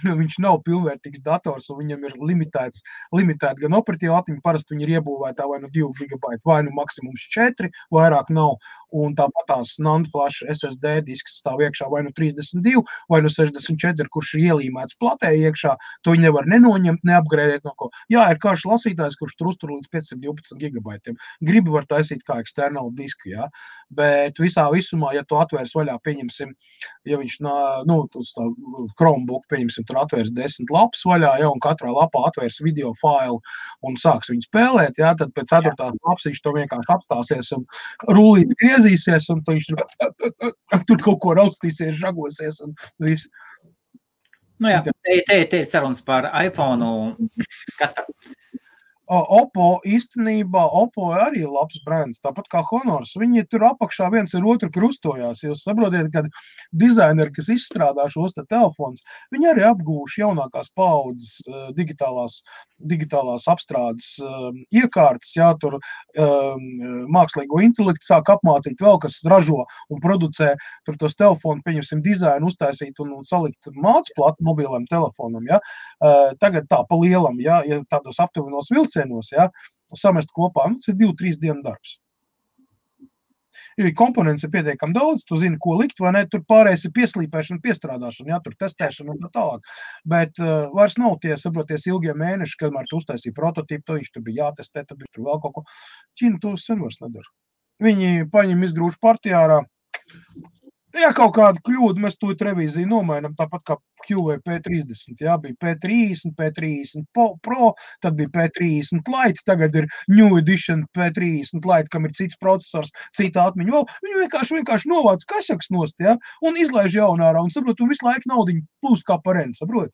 [SPEAKER 1] Viņš nav pilnvērtīgs dators, un viņam ir limitēta gan operatīva atmiņa, parasti viņi ir iebūvētā vai 2 GB, vai maksimums 4, vairāk nav, un tāpat tās NAND flash SSD disks stāv iekšā vai 32, vai 64, kurš ir ielīmēts platē iekšā, to viņi nevar nenoņemt, neapgrēdēt no ko. Jā, ir karš lasītājs, kurš tur uztur līdz 512 GB. Gribi var taisīt kā eksternālu disku, jā, bet visā visumā, ja tu atvērs vaļā, pieņemsim, ja viņš, Chromebook, paņemsim, tur atvērs 10 lapas vaļā, ja, un katrā lapā atvērs video failu un sāks viņu spēlēt, ja, tad pēc 4. lapas viņš to vienkārši apstāsies un rullīts griezīsies, un viņš tur kaut ko raustīsies, žagosies un viss.
[SPEAKER 2] Nu jā, te ir sarunas par iPhone. Kas par?
[SPEAKER 1] Oppo īstenībā, Oppo arī ir labs brands, tāpat kā Honors. Viņi tur apakšā viens ar otru krustojās. Jūs saprotiet, ka dizaineri, kas izstrādā šos te telefons, viņi arī apgūši jaunākās paaudzes digitālās apstrādes iekārtas, jā, tur mākslīgo intelektu sāk apmācīt vēl, kas ražo un producē tur tos telefonu, pieņemsim, dizainu uztaisīt un salikt mācplatu mobiliem telefonam, jā. Tagad tā pa lielam, jā, ja tādos aptuvenos vilcienos, ja, samest kopā, tas ir 2-3 dienu darbs. Jo komponents ir pietiekami daudz, tu zini, ko likt, vai ne, tur pārējais ir pieslīpēšana, piestrādāšana, ja, tur testēšana un tā tālāk. Bet vairs nav tie, saproties, ilgie mēneši, kamēr tu uztaisīji prototipu, to viņš tur bija jātestē, tad viņš tur vēl kaut ko. Ķīna to sen vairs nedara. Viņi paņem izgrūž partijā ārā. Ja kaut kāda kļūda, mēs to revīziju nomainam, tāpat kā QV P30, jā, bija P30, P30 Pro, tad bija P30 Lite, tagad ir New Edition P30 Lite, kam ir cits procesors, cita atmiņa vēl. Viņi vienkārši novāc kašaks nost, jā, un izlaiž jaunā ārā, un saprot, un visu laiku naudiņu plūst kā pareni, saprot?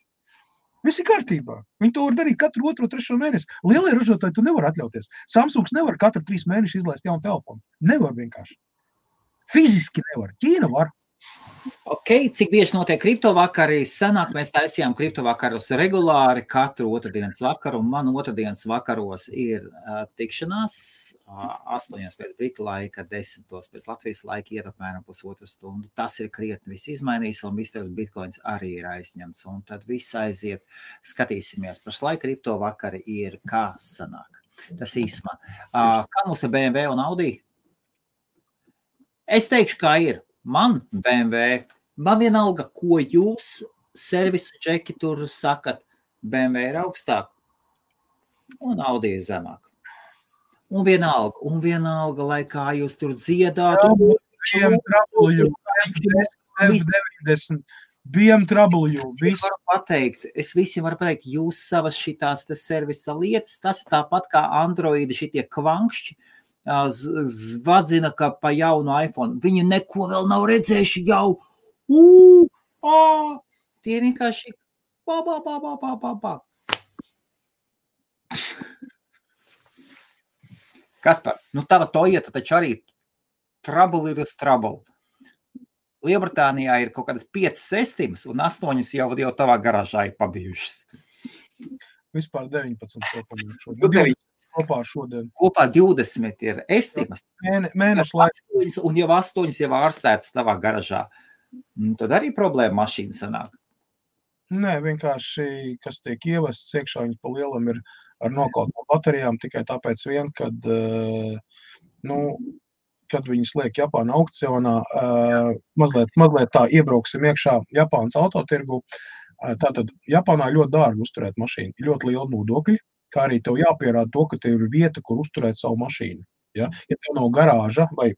[SPEAKER 1] Viss ir kārtībā. Viņi to var darīt katru 2-3 mēnesi. Lielie ražotāji tu nevar atļauties. Samsungs nevar katru 3 mēneši izlaist jaunu telefonu. Nevar vienkārši. Fiziski nevar. Ķīna var.
[SPEAKER 2] Ok, cik bieži notiek kriptovakari? Senāk mēs taisījām kriptovakarus regulāri katru otrdienas vakaru, un man otrdienas vakaros ir tikšanās 8 pēc Britu laika, 10 pēc Latvijas laika, iet apmēram pusotru stundu. Tas ir krietni viss izmainījis, un Mr. Bitcoins arī ir aizņemts, un tad viss aiziet. Skatīsimies, pašlaik kriptovakari ir kā sanāk. Tas īsumā. Kā mums ir BMW un Audi? Es teikšu, kā ir. Man BMW, man vienalga, ko jūs servisu čeki tur sakat, BMW ir augstāk un Audi ir zemāk. Un vienalga, lai kā jūs tur dziedātu.
[SPEAKER 1] BMW,
[SPEAKER 2] Es visiem varu pateikt, jūs savas šitās te servisa lietas, tas ir tāpat kā Androidi šitie kvankšķi, zvadzina, ka pa jaunu iPhone. Viņi neko vēl nav redzējuši jau. Tie vienkārši Kaspar, nu tava Toyota taču arī trouble ir uz trouble. Lielbritānijā ir kaut kādas 5 estimas un 8 jau tavā garāžā ir pabijušas.
[SPEAKER 1] Vispār 19 šodien. Kopā šodien.
[SPEAKER 2] Kopā 20 ir estimas.
[SPEAKER 1] Mēnešu laikā.
[SPEAKER 2] Un jau 8 jau ārstētas tavā garažā. Tad arī problēma mašīna sanāk.
[SPEAKER 1] Nē, vienkārši, kas tiek ievests iekšā, viņi pa lielam ir ar nokautām baterijām tikai tāpēc vien, kad, kad viņas liek Japāna aukcionā, mazliet tā iebrauksim iekšā Japānas autotirgu. Tātad Japānā ļoti dārgi uzturēt mašīnu, ļoti liela nodokļi, kā arī tev jāpierāda to, ka tev ir vieta, kur uzturēt savu mašīnu. Ja tev nav garāža vai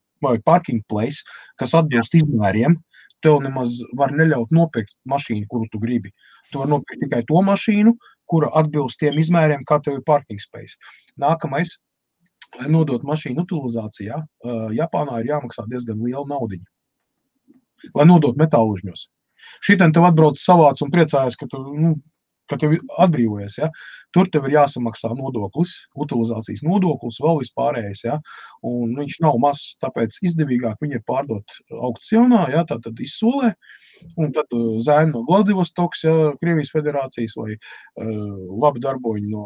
[SPEAKER 1] parking place, kas atbilst izmēriem, tev nemaz var neļaut nopirkt mašīnu, kuru tu gribi. Tu var nopirkt tikai to mašīnu, kura atbilst tiem izmēriem, kā tev ir parking space. Nākamais, lai nodot mašīnu utilizācijā, Japānā ir jāmaksā diezgan liela naudiņa, lai nodot metālužņos. Šitien tev atbrauc savāc un priecājas, ka tev atbrīvojies, ja? Tur tev ir jāsamaksā nodoklis, utilizācijas nodoklis, vēl vispārējais, ja? Un viņš nav mazs, tāpēc izdevīgāk viņi ir pārdot aukcionā, ja? Tad izsolē, un tad zēni no Vladivostoks, ja? Krievijas federācijas vai labi darboņi no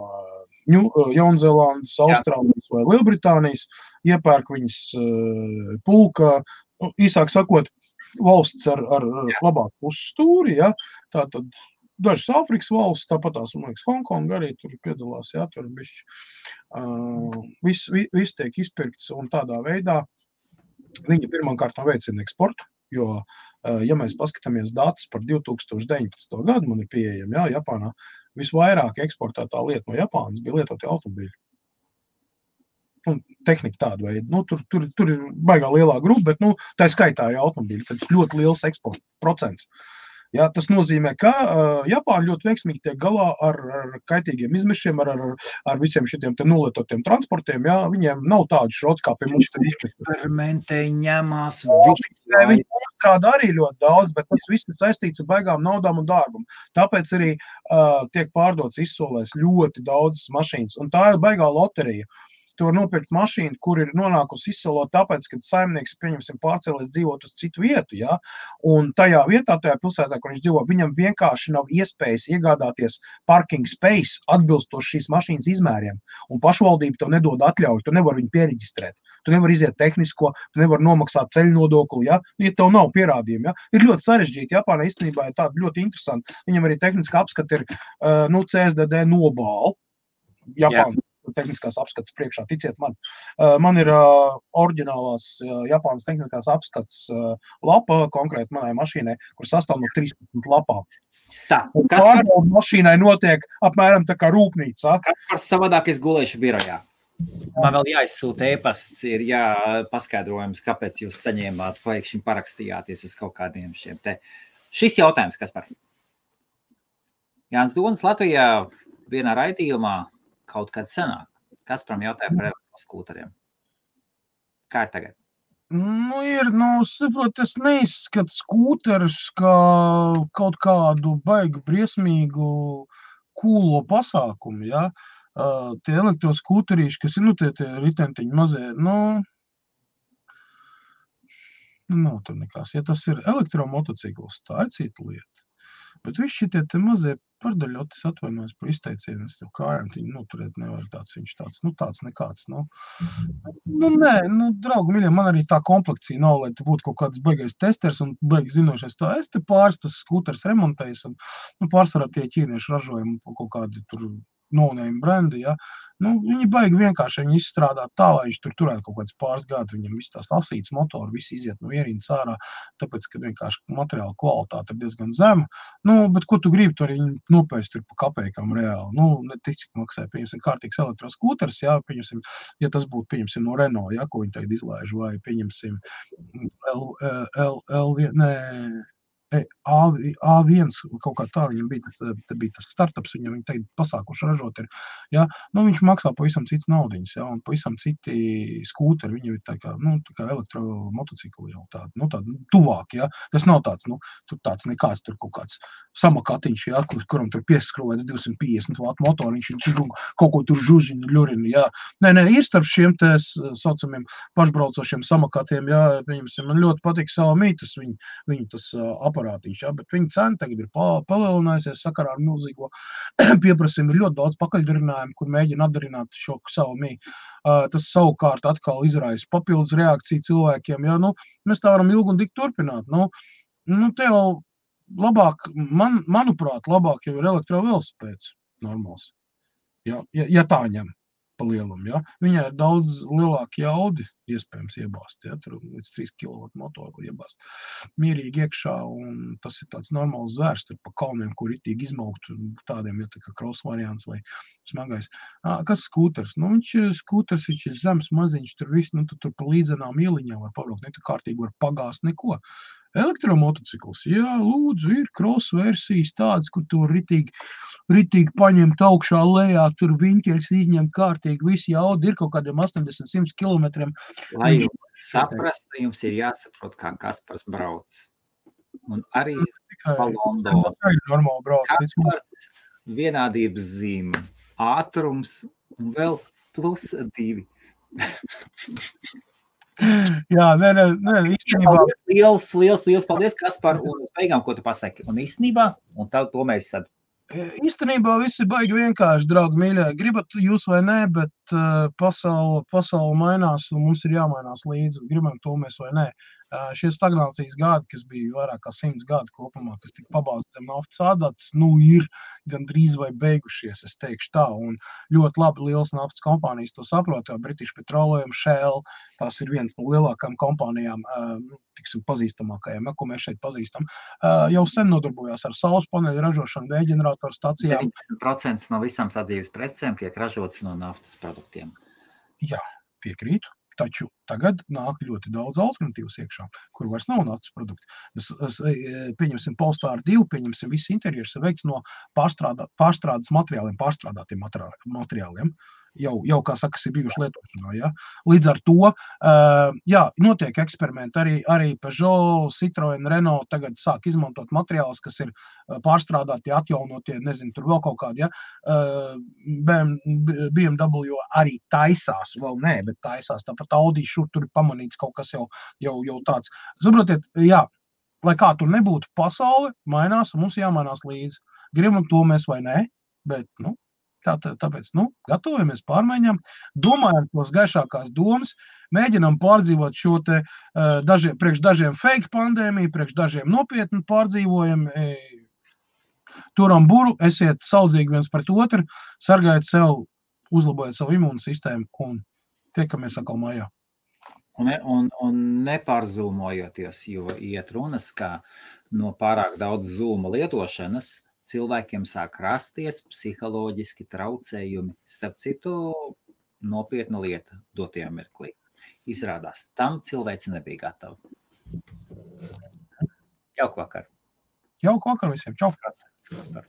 [SPEAKER 1] Jaunzēlandes, Austrālijas vai Lielbritānijas, iepērk viņas pulka, īsāk sakot, valsts ar labāku pusstūri, ja? Tātad dažas Āfrikas valsts, tāpat tās, man liekas, Hongkonga arī tur piedalās, ja? Tur bišķi. Viss tiek izpirkts un tādā veidā viņi pirmkārt veicina eksportu, jo, ja mēs paskatāmies datus par 2019. Gadu, man ir pieejami, ja? Japānā visvairāk eksportētā lieta no Japānas bija lietoti automobīļi. Un tehnika tāda veida. Tur ir baigā lielā grupa, bet tā skaitā ir automobīļi, tad ļoti liels eksporta procents. Jā, tas nozīmē, ka Japāņi ļoti veiksmīgi tiek galā ar kaitīgiem izmešiem, ar visiem šitiem te nolietotiem transportiem. Jā, viņiem nav tādu šrots, kā pie mums.
[SPEAKER 2] Eksperimentēji ņemās
[SPEAKER 1] visu. Viņi strādā arī ļoti daudz, bet tas viss ir saistīts ar baigām naudām un dārgumu. Tāpēc arī tiek pārdots izsolēs ļoti daudz mašīnas. Un tā ir baigā loterija. Tu var nopirkt mašīnu, kur ir nonākusi izsolot tāpēc, ka saimnieks, pieņemsim, pārcēlies dzīvot uz citu vietu, ja? Un tajā vietā, tajā pilsētā, kur viņš dzīvo, viņam vienkārši nav iespējas iegādāties parking space atbilstoši šīs mašīnas izmēriem. Un pašvaldība tev nedod atļauju, tu nevar viņu piereģistrēt. Tu nevar iziet tehnisko, tu nevar nomaksāt ceļu nodokli, ja tev nav pierādījumi. Ja? Ir ļoti sarežģīti. Japānā īstenībā ir tāda ļoti interesanti. Viņam arī tehniska apskata ir CSDD nobāla. Japāna. Tehniskās apskates priekšā, ticiet man. Man ir oriģinālās Japānas tehniskās apskates lapa konkrēti manai mašīnai, kur sastāv no 13 lapām. Un pārbauda mašīnai notiek apmēram tā kā rūpnīca.
[SPEAKER 2] Kaspars savādāk es gulēšu birojā. Man vēl jāizsūta e-pasts, ir paskaidrojums, kāpēc jūs saņēmāt, pēkšņi parakstījāties uz kaut kādiem šiem te. Šis jautājums, Kaspar. Jānis Donis Latvijā vienā raidījumā kaut kad senāk. Kasparam jautāja par elektroskūteriem. Kā ir tagad?
[SPEAKER 1] Saprot, es neizskatu skūterus kā kaut kādu baigu briesmīgu kūlo pasākumu, ja? Tie elektroskūterīši, kas ir, tie ritentiņi mazie, nav tur nekās. Ja tas ir elektromotocikls, tā ir cita lieta. Bet visi šitie te mazie pardaļotis atvainojas par izteicienu, es tev kājām viņi noturēt nevar viņš tāds nekāds, Nē, draugi miļie, man arī tā komplekcija nav, lai te būtu kaut kāds baigais testers un baigi zinošais tā. Es te pāris tas skūters remontējis un, pārsvarā tie ķīnieši ražojumi kaut kādi tur no-name brendi, ja. Viņi baigi vienkārši viņi izstrādāt tā, lai viņš tur turētu kaut kāds pāris gadus, viņam viss tās lasītas motori, visi iziet no ierīnas ārā, tāpēc, ka vienkārši materiāla kvalitāte ir diezgan zema. Bet ko tu gribi, tur viņi nopēst tur pa kapēkam reāli. Netik, cik maksāja, pieņemsim, kārtīgs elektroskūters, jā, pieņemsim, ja tas būtu, pieņemsim, no Renault, ja, ko viņi tagad izlaiž, vai pieņemsim A1 kaut kā tā, viņam bija tas startups, viņam tagad pasākuši ražot ir, ja, viņš maksā pavisam cits naudiņas, ja, un pavisam citi skūteri, viņam ir tā kā elektromotocikli jau tādi tuvāk, ja, tas nav tāds, tur tāds nekāds, tur kaut kāds samakatiņš, ja, kuram tur pieskrovēts 250 vatu motoriņš, viņš kaut ko tur žužiņu, ļurinu, ja. Nē, ir starp šiem te saucamiem pašbraucošiem samakatiem, ja, man ļoti patīk Xiaomi, viņu tas aparātiņš, ja, bet viņa cena tagad ir palielinājusies sakarā ar milzīgo pieprasījumu. Ir ļoti daudz pakaļdarinājumu, kur mēģina atdarināt šo Xiaomi. Tas savukārt atkal izraisa papildus reakciju cilvēkiem. Ja, mēs tā varam ilgi un dikti turpināt. Te jau labāk, manuprāt, labāk jau ir elektrovelosipēds normāls. Ja tā ņem pa lielumu, ja. Viņai ir daudz lielāki jaudi iespējams iebāzt, ja, tur līdz 3 kW motoru iebāzt mierīgi iekšā, un tas ir tāds normāls zvērs, tur pa kalniem, kur ritīgi izmaukt, tādiem, ja tā kā cross variants vai smagais. Kas skūters? Viņš ir zems, maziņš, tur viss, tur pa līdzenām ieliņām var pabraukt, tu kārtīgi var pagāst neko. Elektromotocikls, jā, lūdzu, ir cross versijas tādas, kur tu ritīgi paņemt augšā lejā, tur viņķers izņem kārtīgi, visi jaudi ir kaut kādiem 80-100 kilometriem.
[SPEAKER 2] Lai jūs saprastu, jums ir jāsaprot, kā Kaspars brauc. Un arī pa Londonu. Kaspars vienādības zīme, ātrums un vēl +2.
[SPEAKER 1] Jā, nē, īstenībā.
[SPEAKER 2] Liels paldies, Kaspar, un uz beigām, ko tu pasaki. Un īstenībā, un to mēs tad.
[SPEAKER 1] Īstenībā visi baigi vienkārši, draugi mīļie, gribat jūs vai nē, bet pasaule mainās un mums ir jāmainās līdzi, gribam to mēs vai nē. Šie stagnācijas gadi, kas bija vairāk kā 100 gadu kopumā, kas tika pabāzti zem naftas ādātas, ir gandrīz vai beigušies, es teikšu tā, un ļoti labi liels naftas kompānijas to saprot, jo British Petroleum, Shell, tās ir viens no lielākajām kompānijām, tiksim, pazīstamākajām, ko mēs šeit pazīstam, jau sen nodarbojās ar saules paneļu ražošanu, vējģeneratoru stacijām.
[SPEAKER 2] 90% no visām sadzīves precēm tiek ražotas no naftas produktiem.
[SPEAKER 1] Jā, piekrītu. taču tagad nāk ļoti daudz alternatīvas iekšā, kur vairs nav nācis produkti. Pieņemsim Polestar 2, pieņemsim visi interjers ir veikts no pārstrādes materiāliem, pārstrādātiem materiāliem. Jau kā saka, ir bijuši lietošanā. Ja? Līdz ar to, notiek eksperimenti, arī Peugeot, Citroen, Renault tagad sāk izmantot materiālus, kas ir pārstrādāti, atjaunotie, nezinu, tur vēl kaut kādi, ja? BMW arī taisās, vēl nē, bet taisās, tāpat Audi šur tur ir pamanīts kaut kas jau tāds. Saprotiet, jā, lai kā tur nebūtu, pasaule mainās un mums jāmainās līdzi. Gribam to mēs vai nē, bet, tāpēc, gatavojamies pārmaiņām, domājam tos gaišākās domas, mēģinām pārdzīvot šo te priekš dažiem fake pandēmiju, priekš dažiem nopietni pārdzīvojam, turam buru, esiet saudzīgi viens pret otru, sargājiet sev, uzlabojiet savu imūnu sistēmu un tiekamies atkal mājā.
[SPEAKER 2] Un nepārzūmojoties, jo iet runas, kā no pārāk daudz zūma lietošanas, cilvēkiem sāk rasties psiholoģiski traucējumi. Starp citu, nopietna lieta dotajā mirklī. Izrādās, tam cilvēks nebija gatava. Jauku vakar.
[SPEAKER 1] Jauku vakar visiem. Čau.
[SPEAKER 2] Kas par?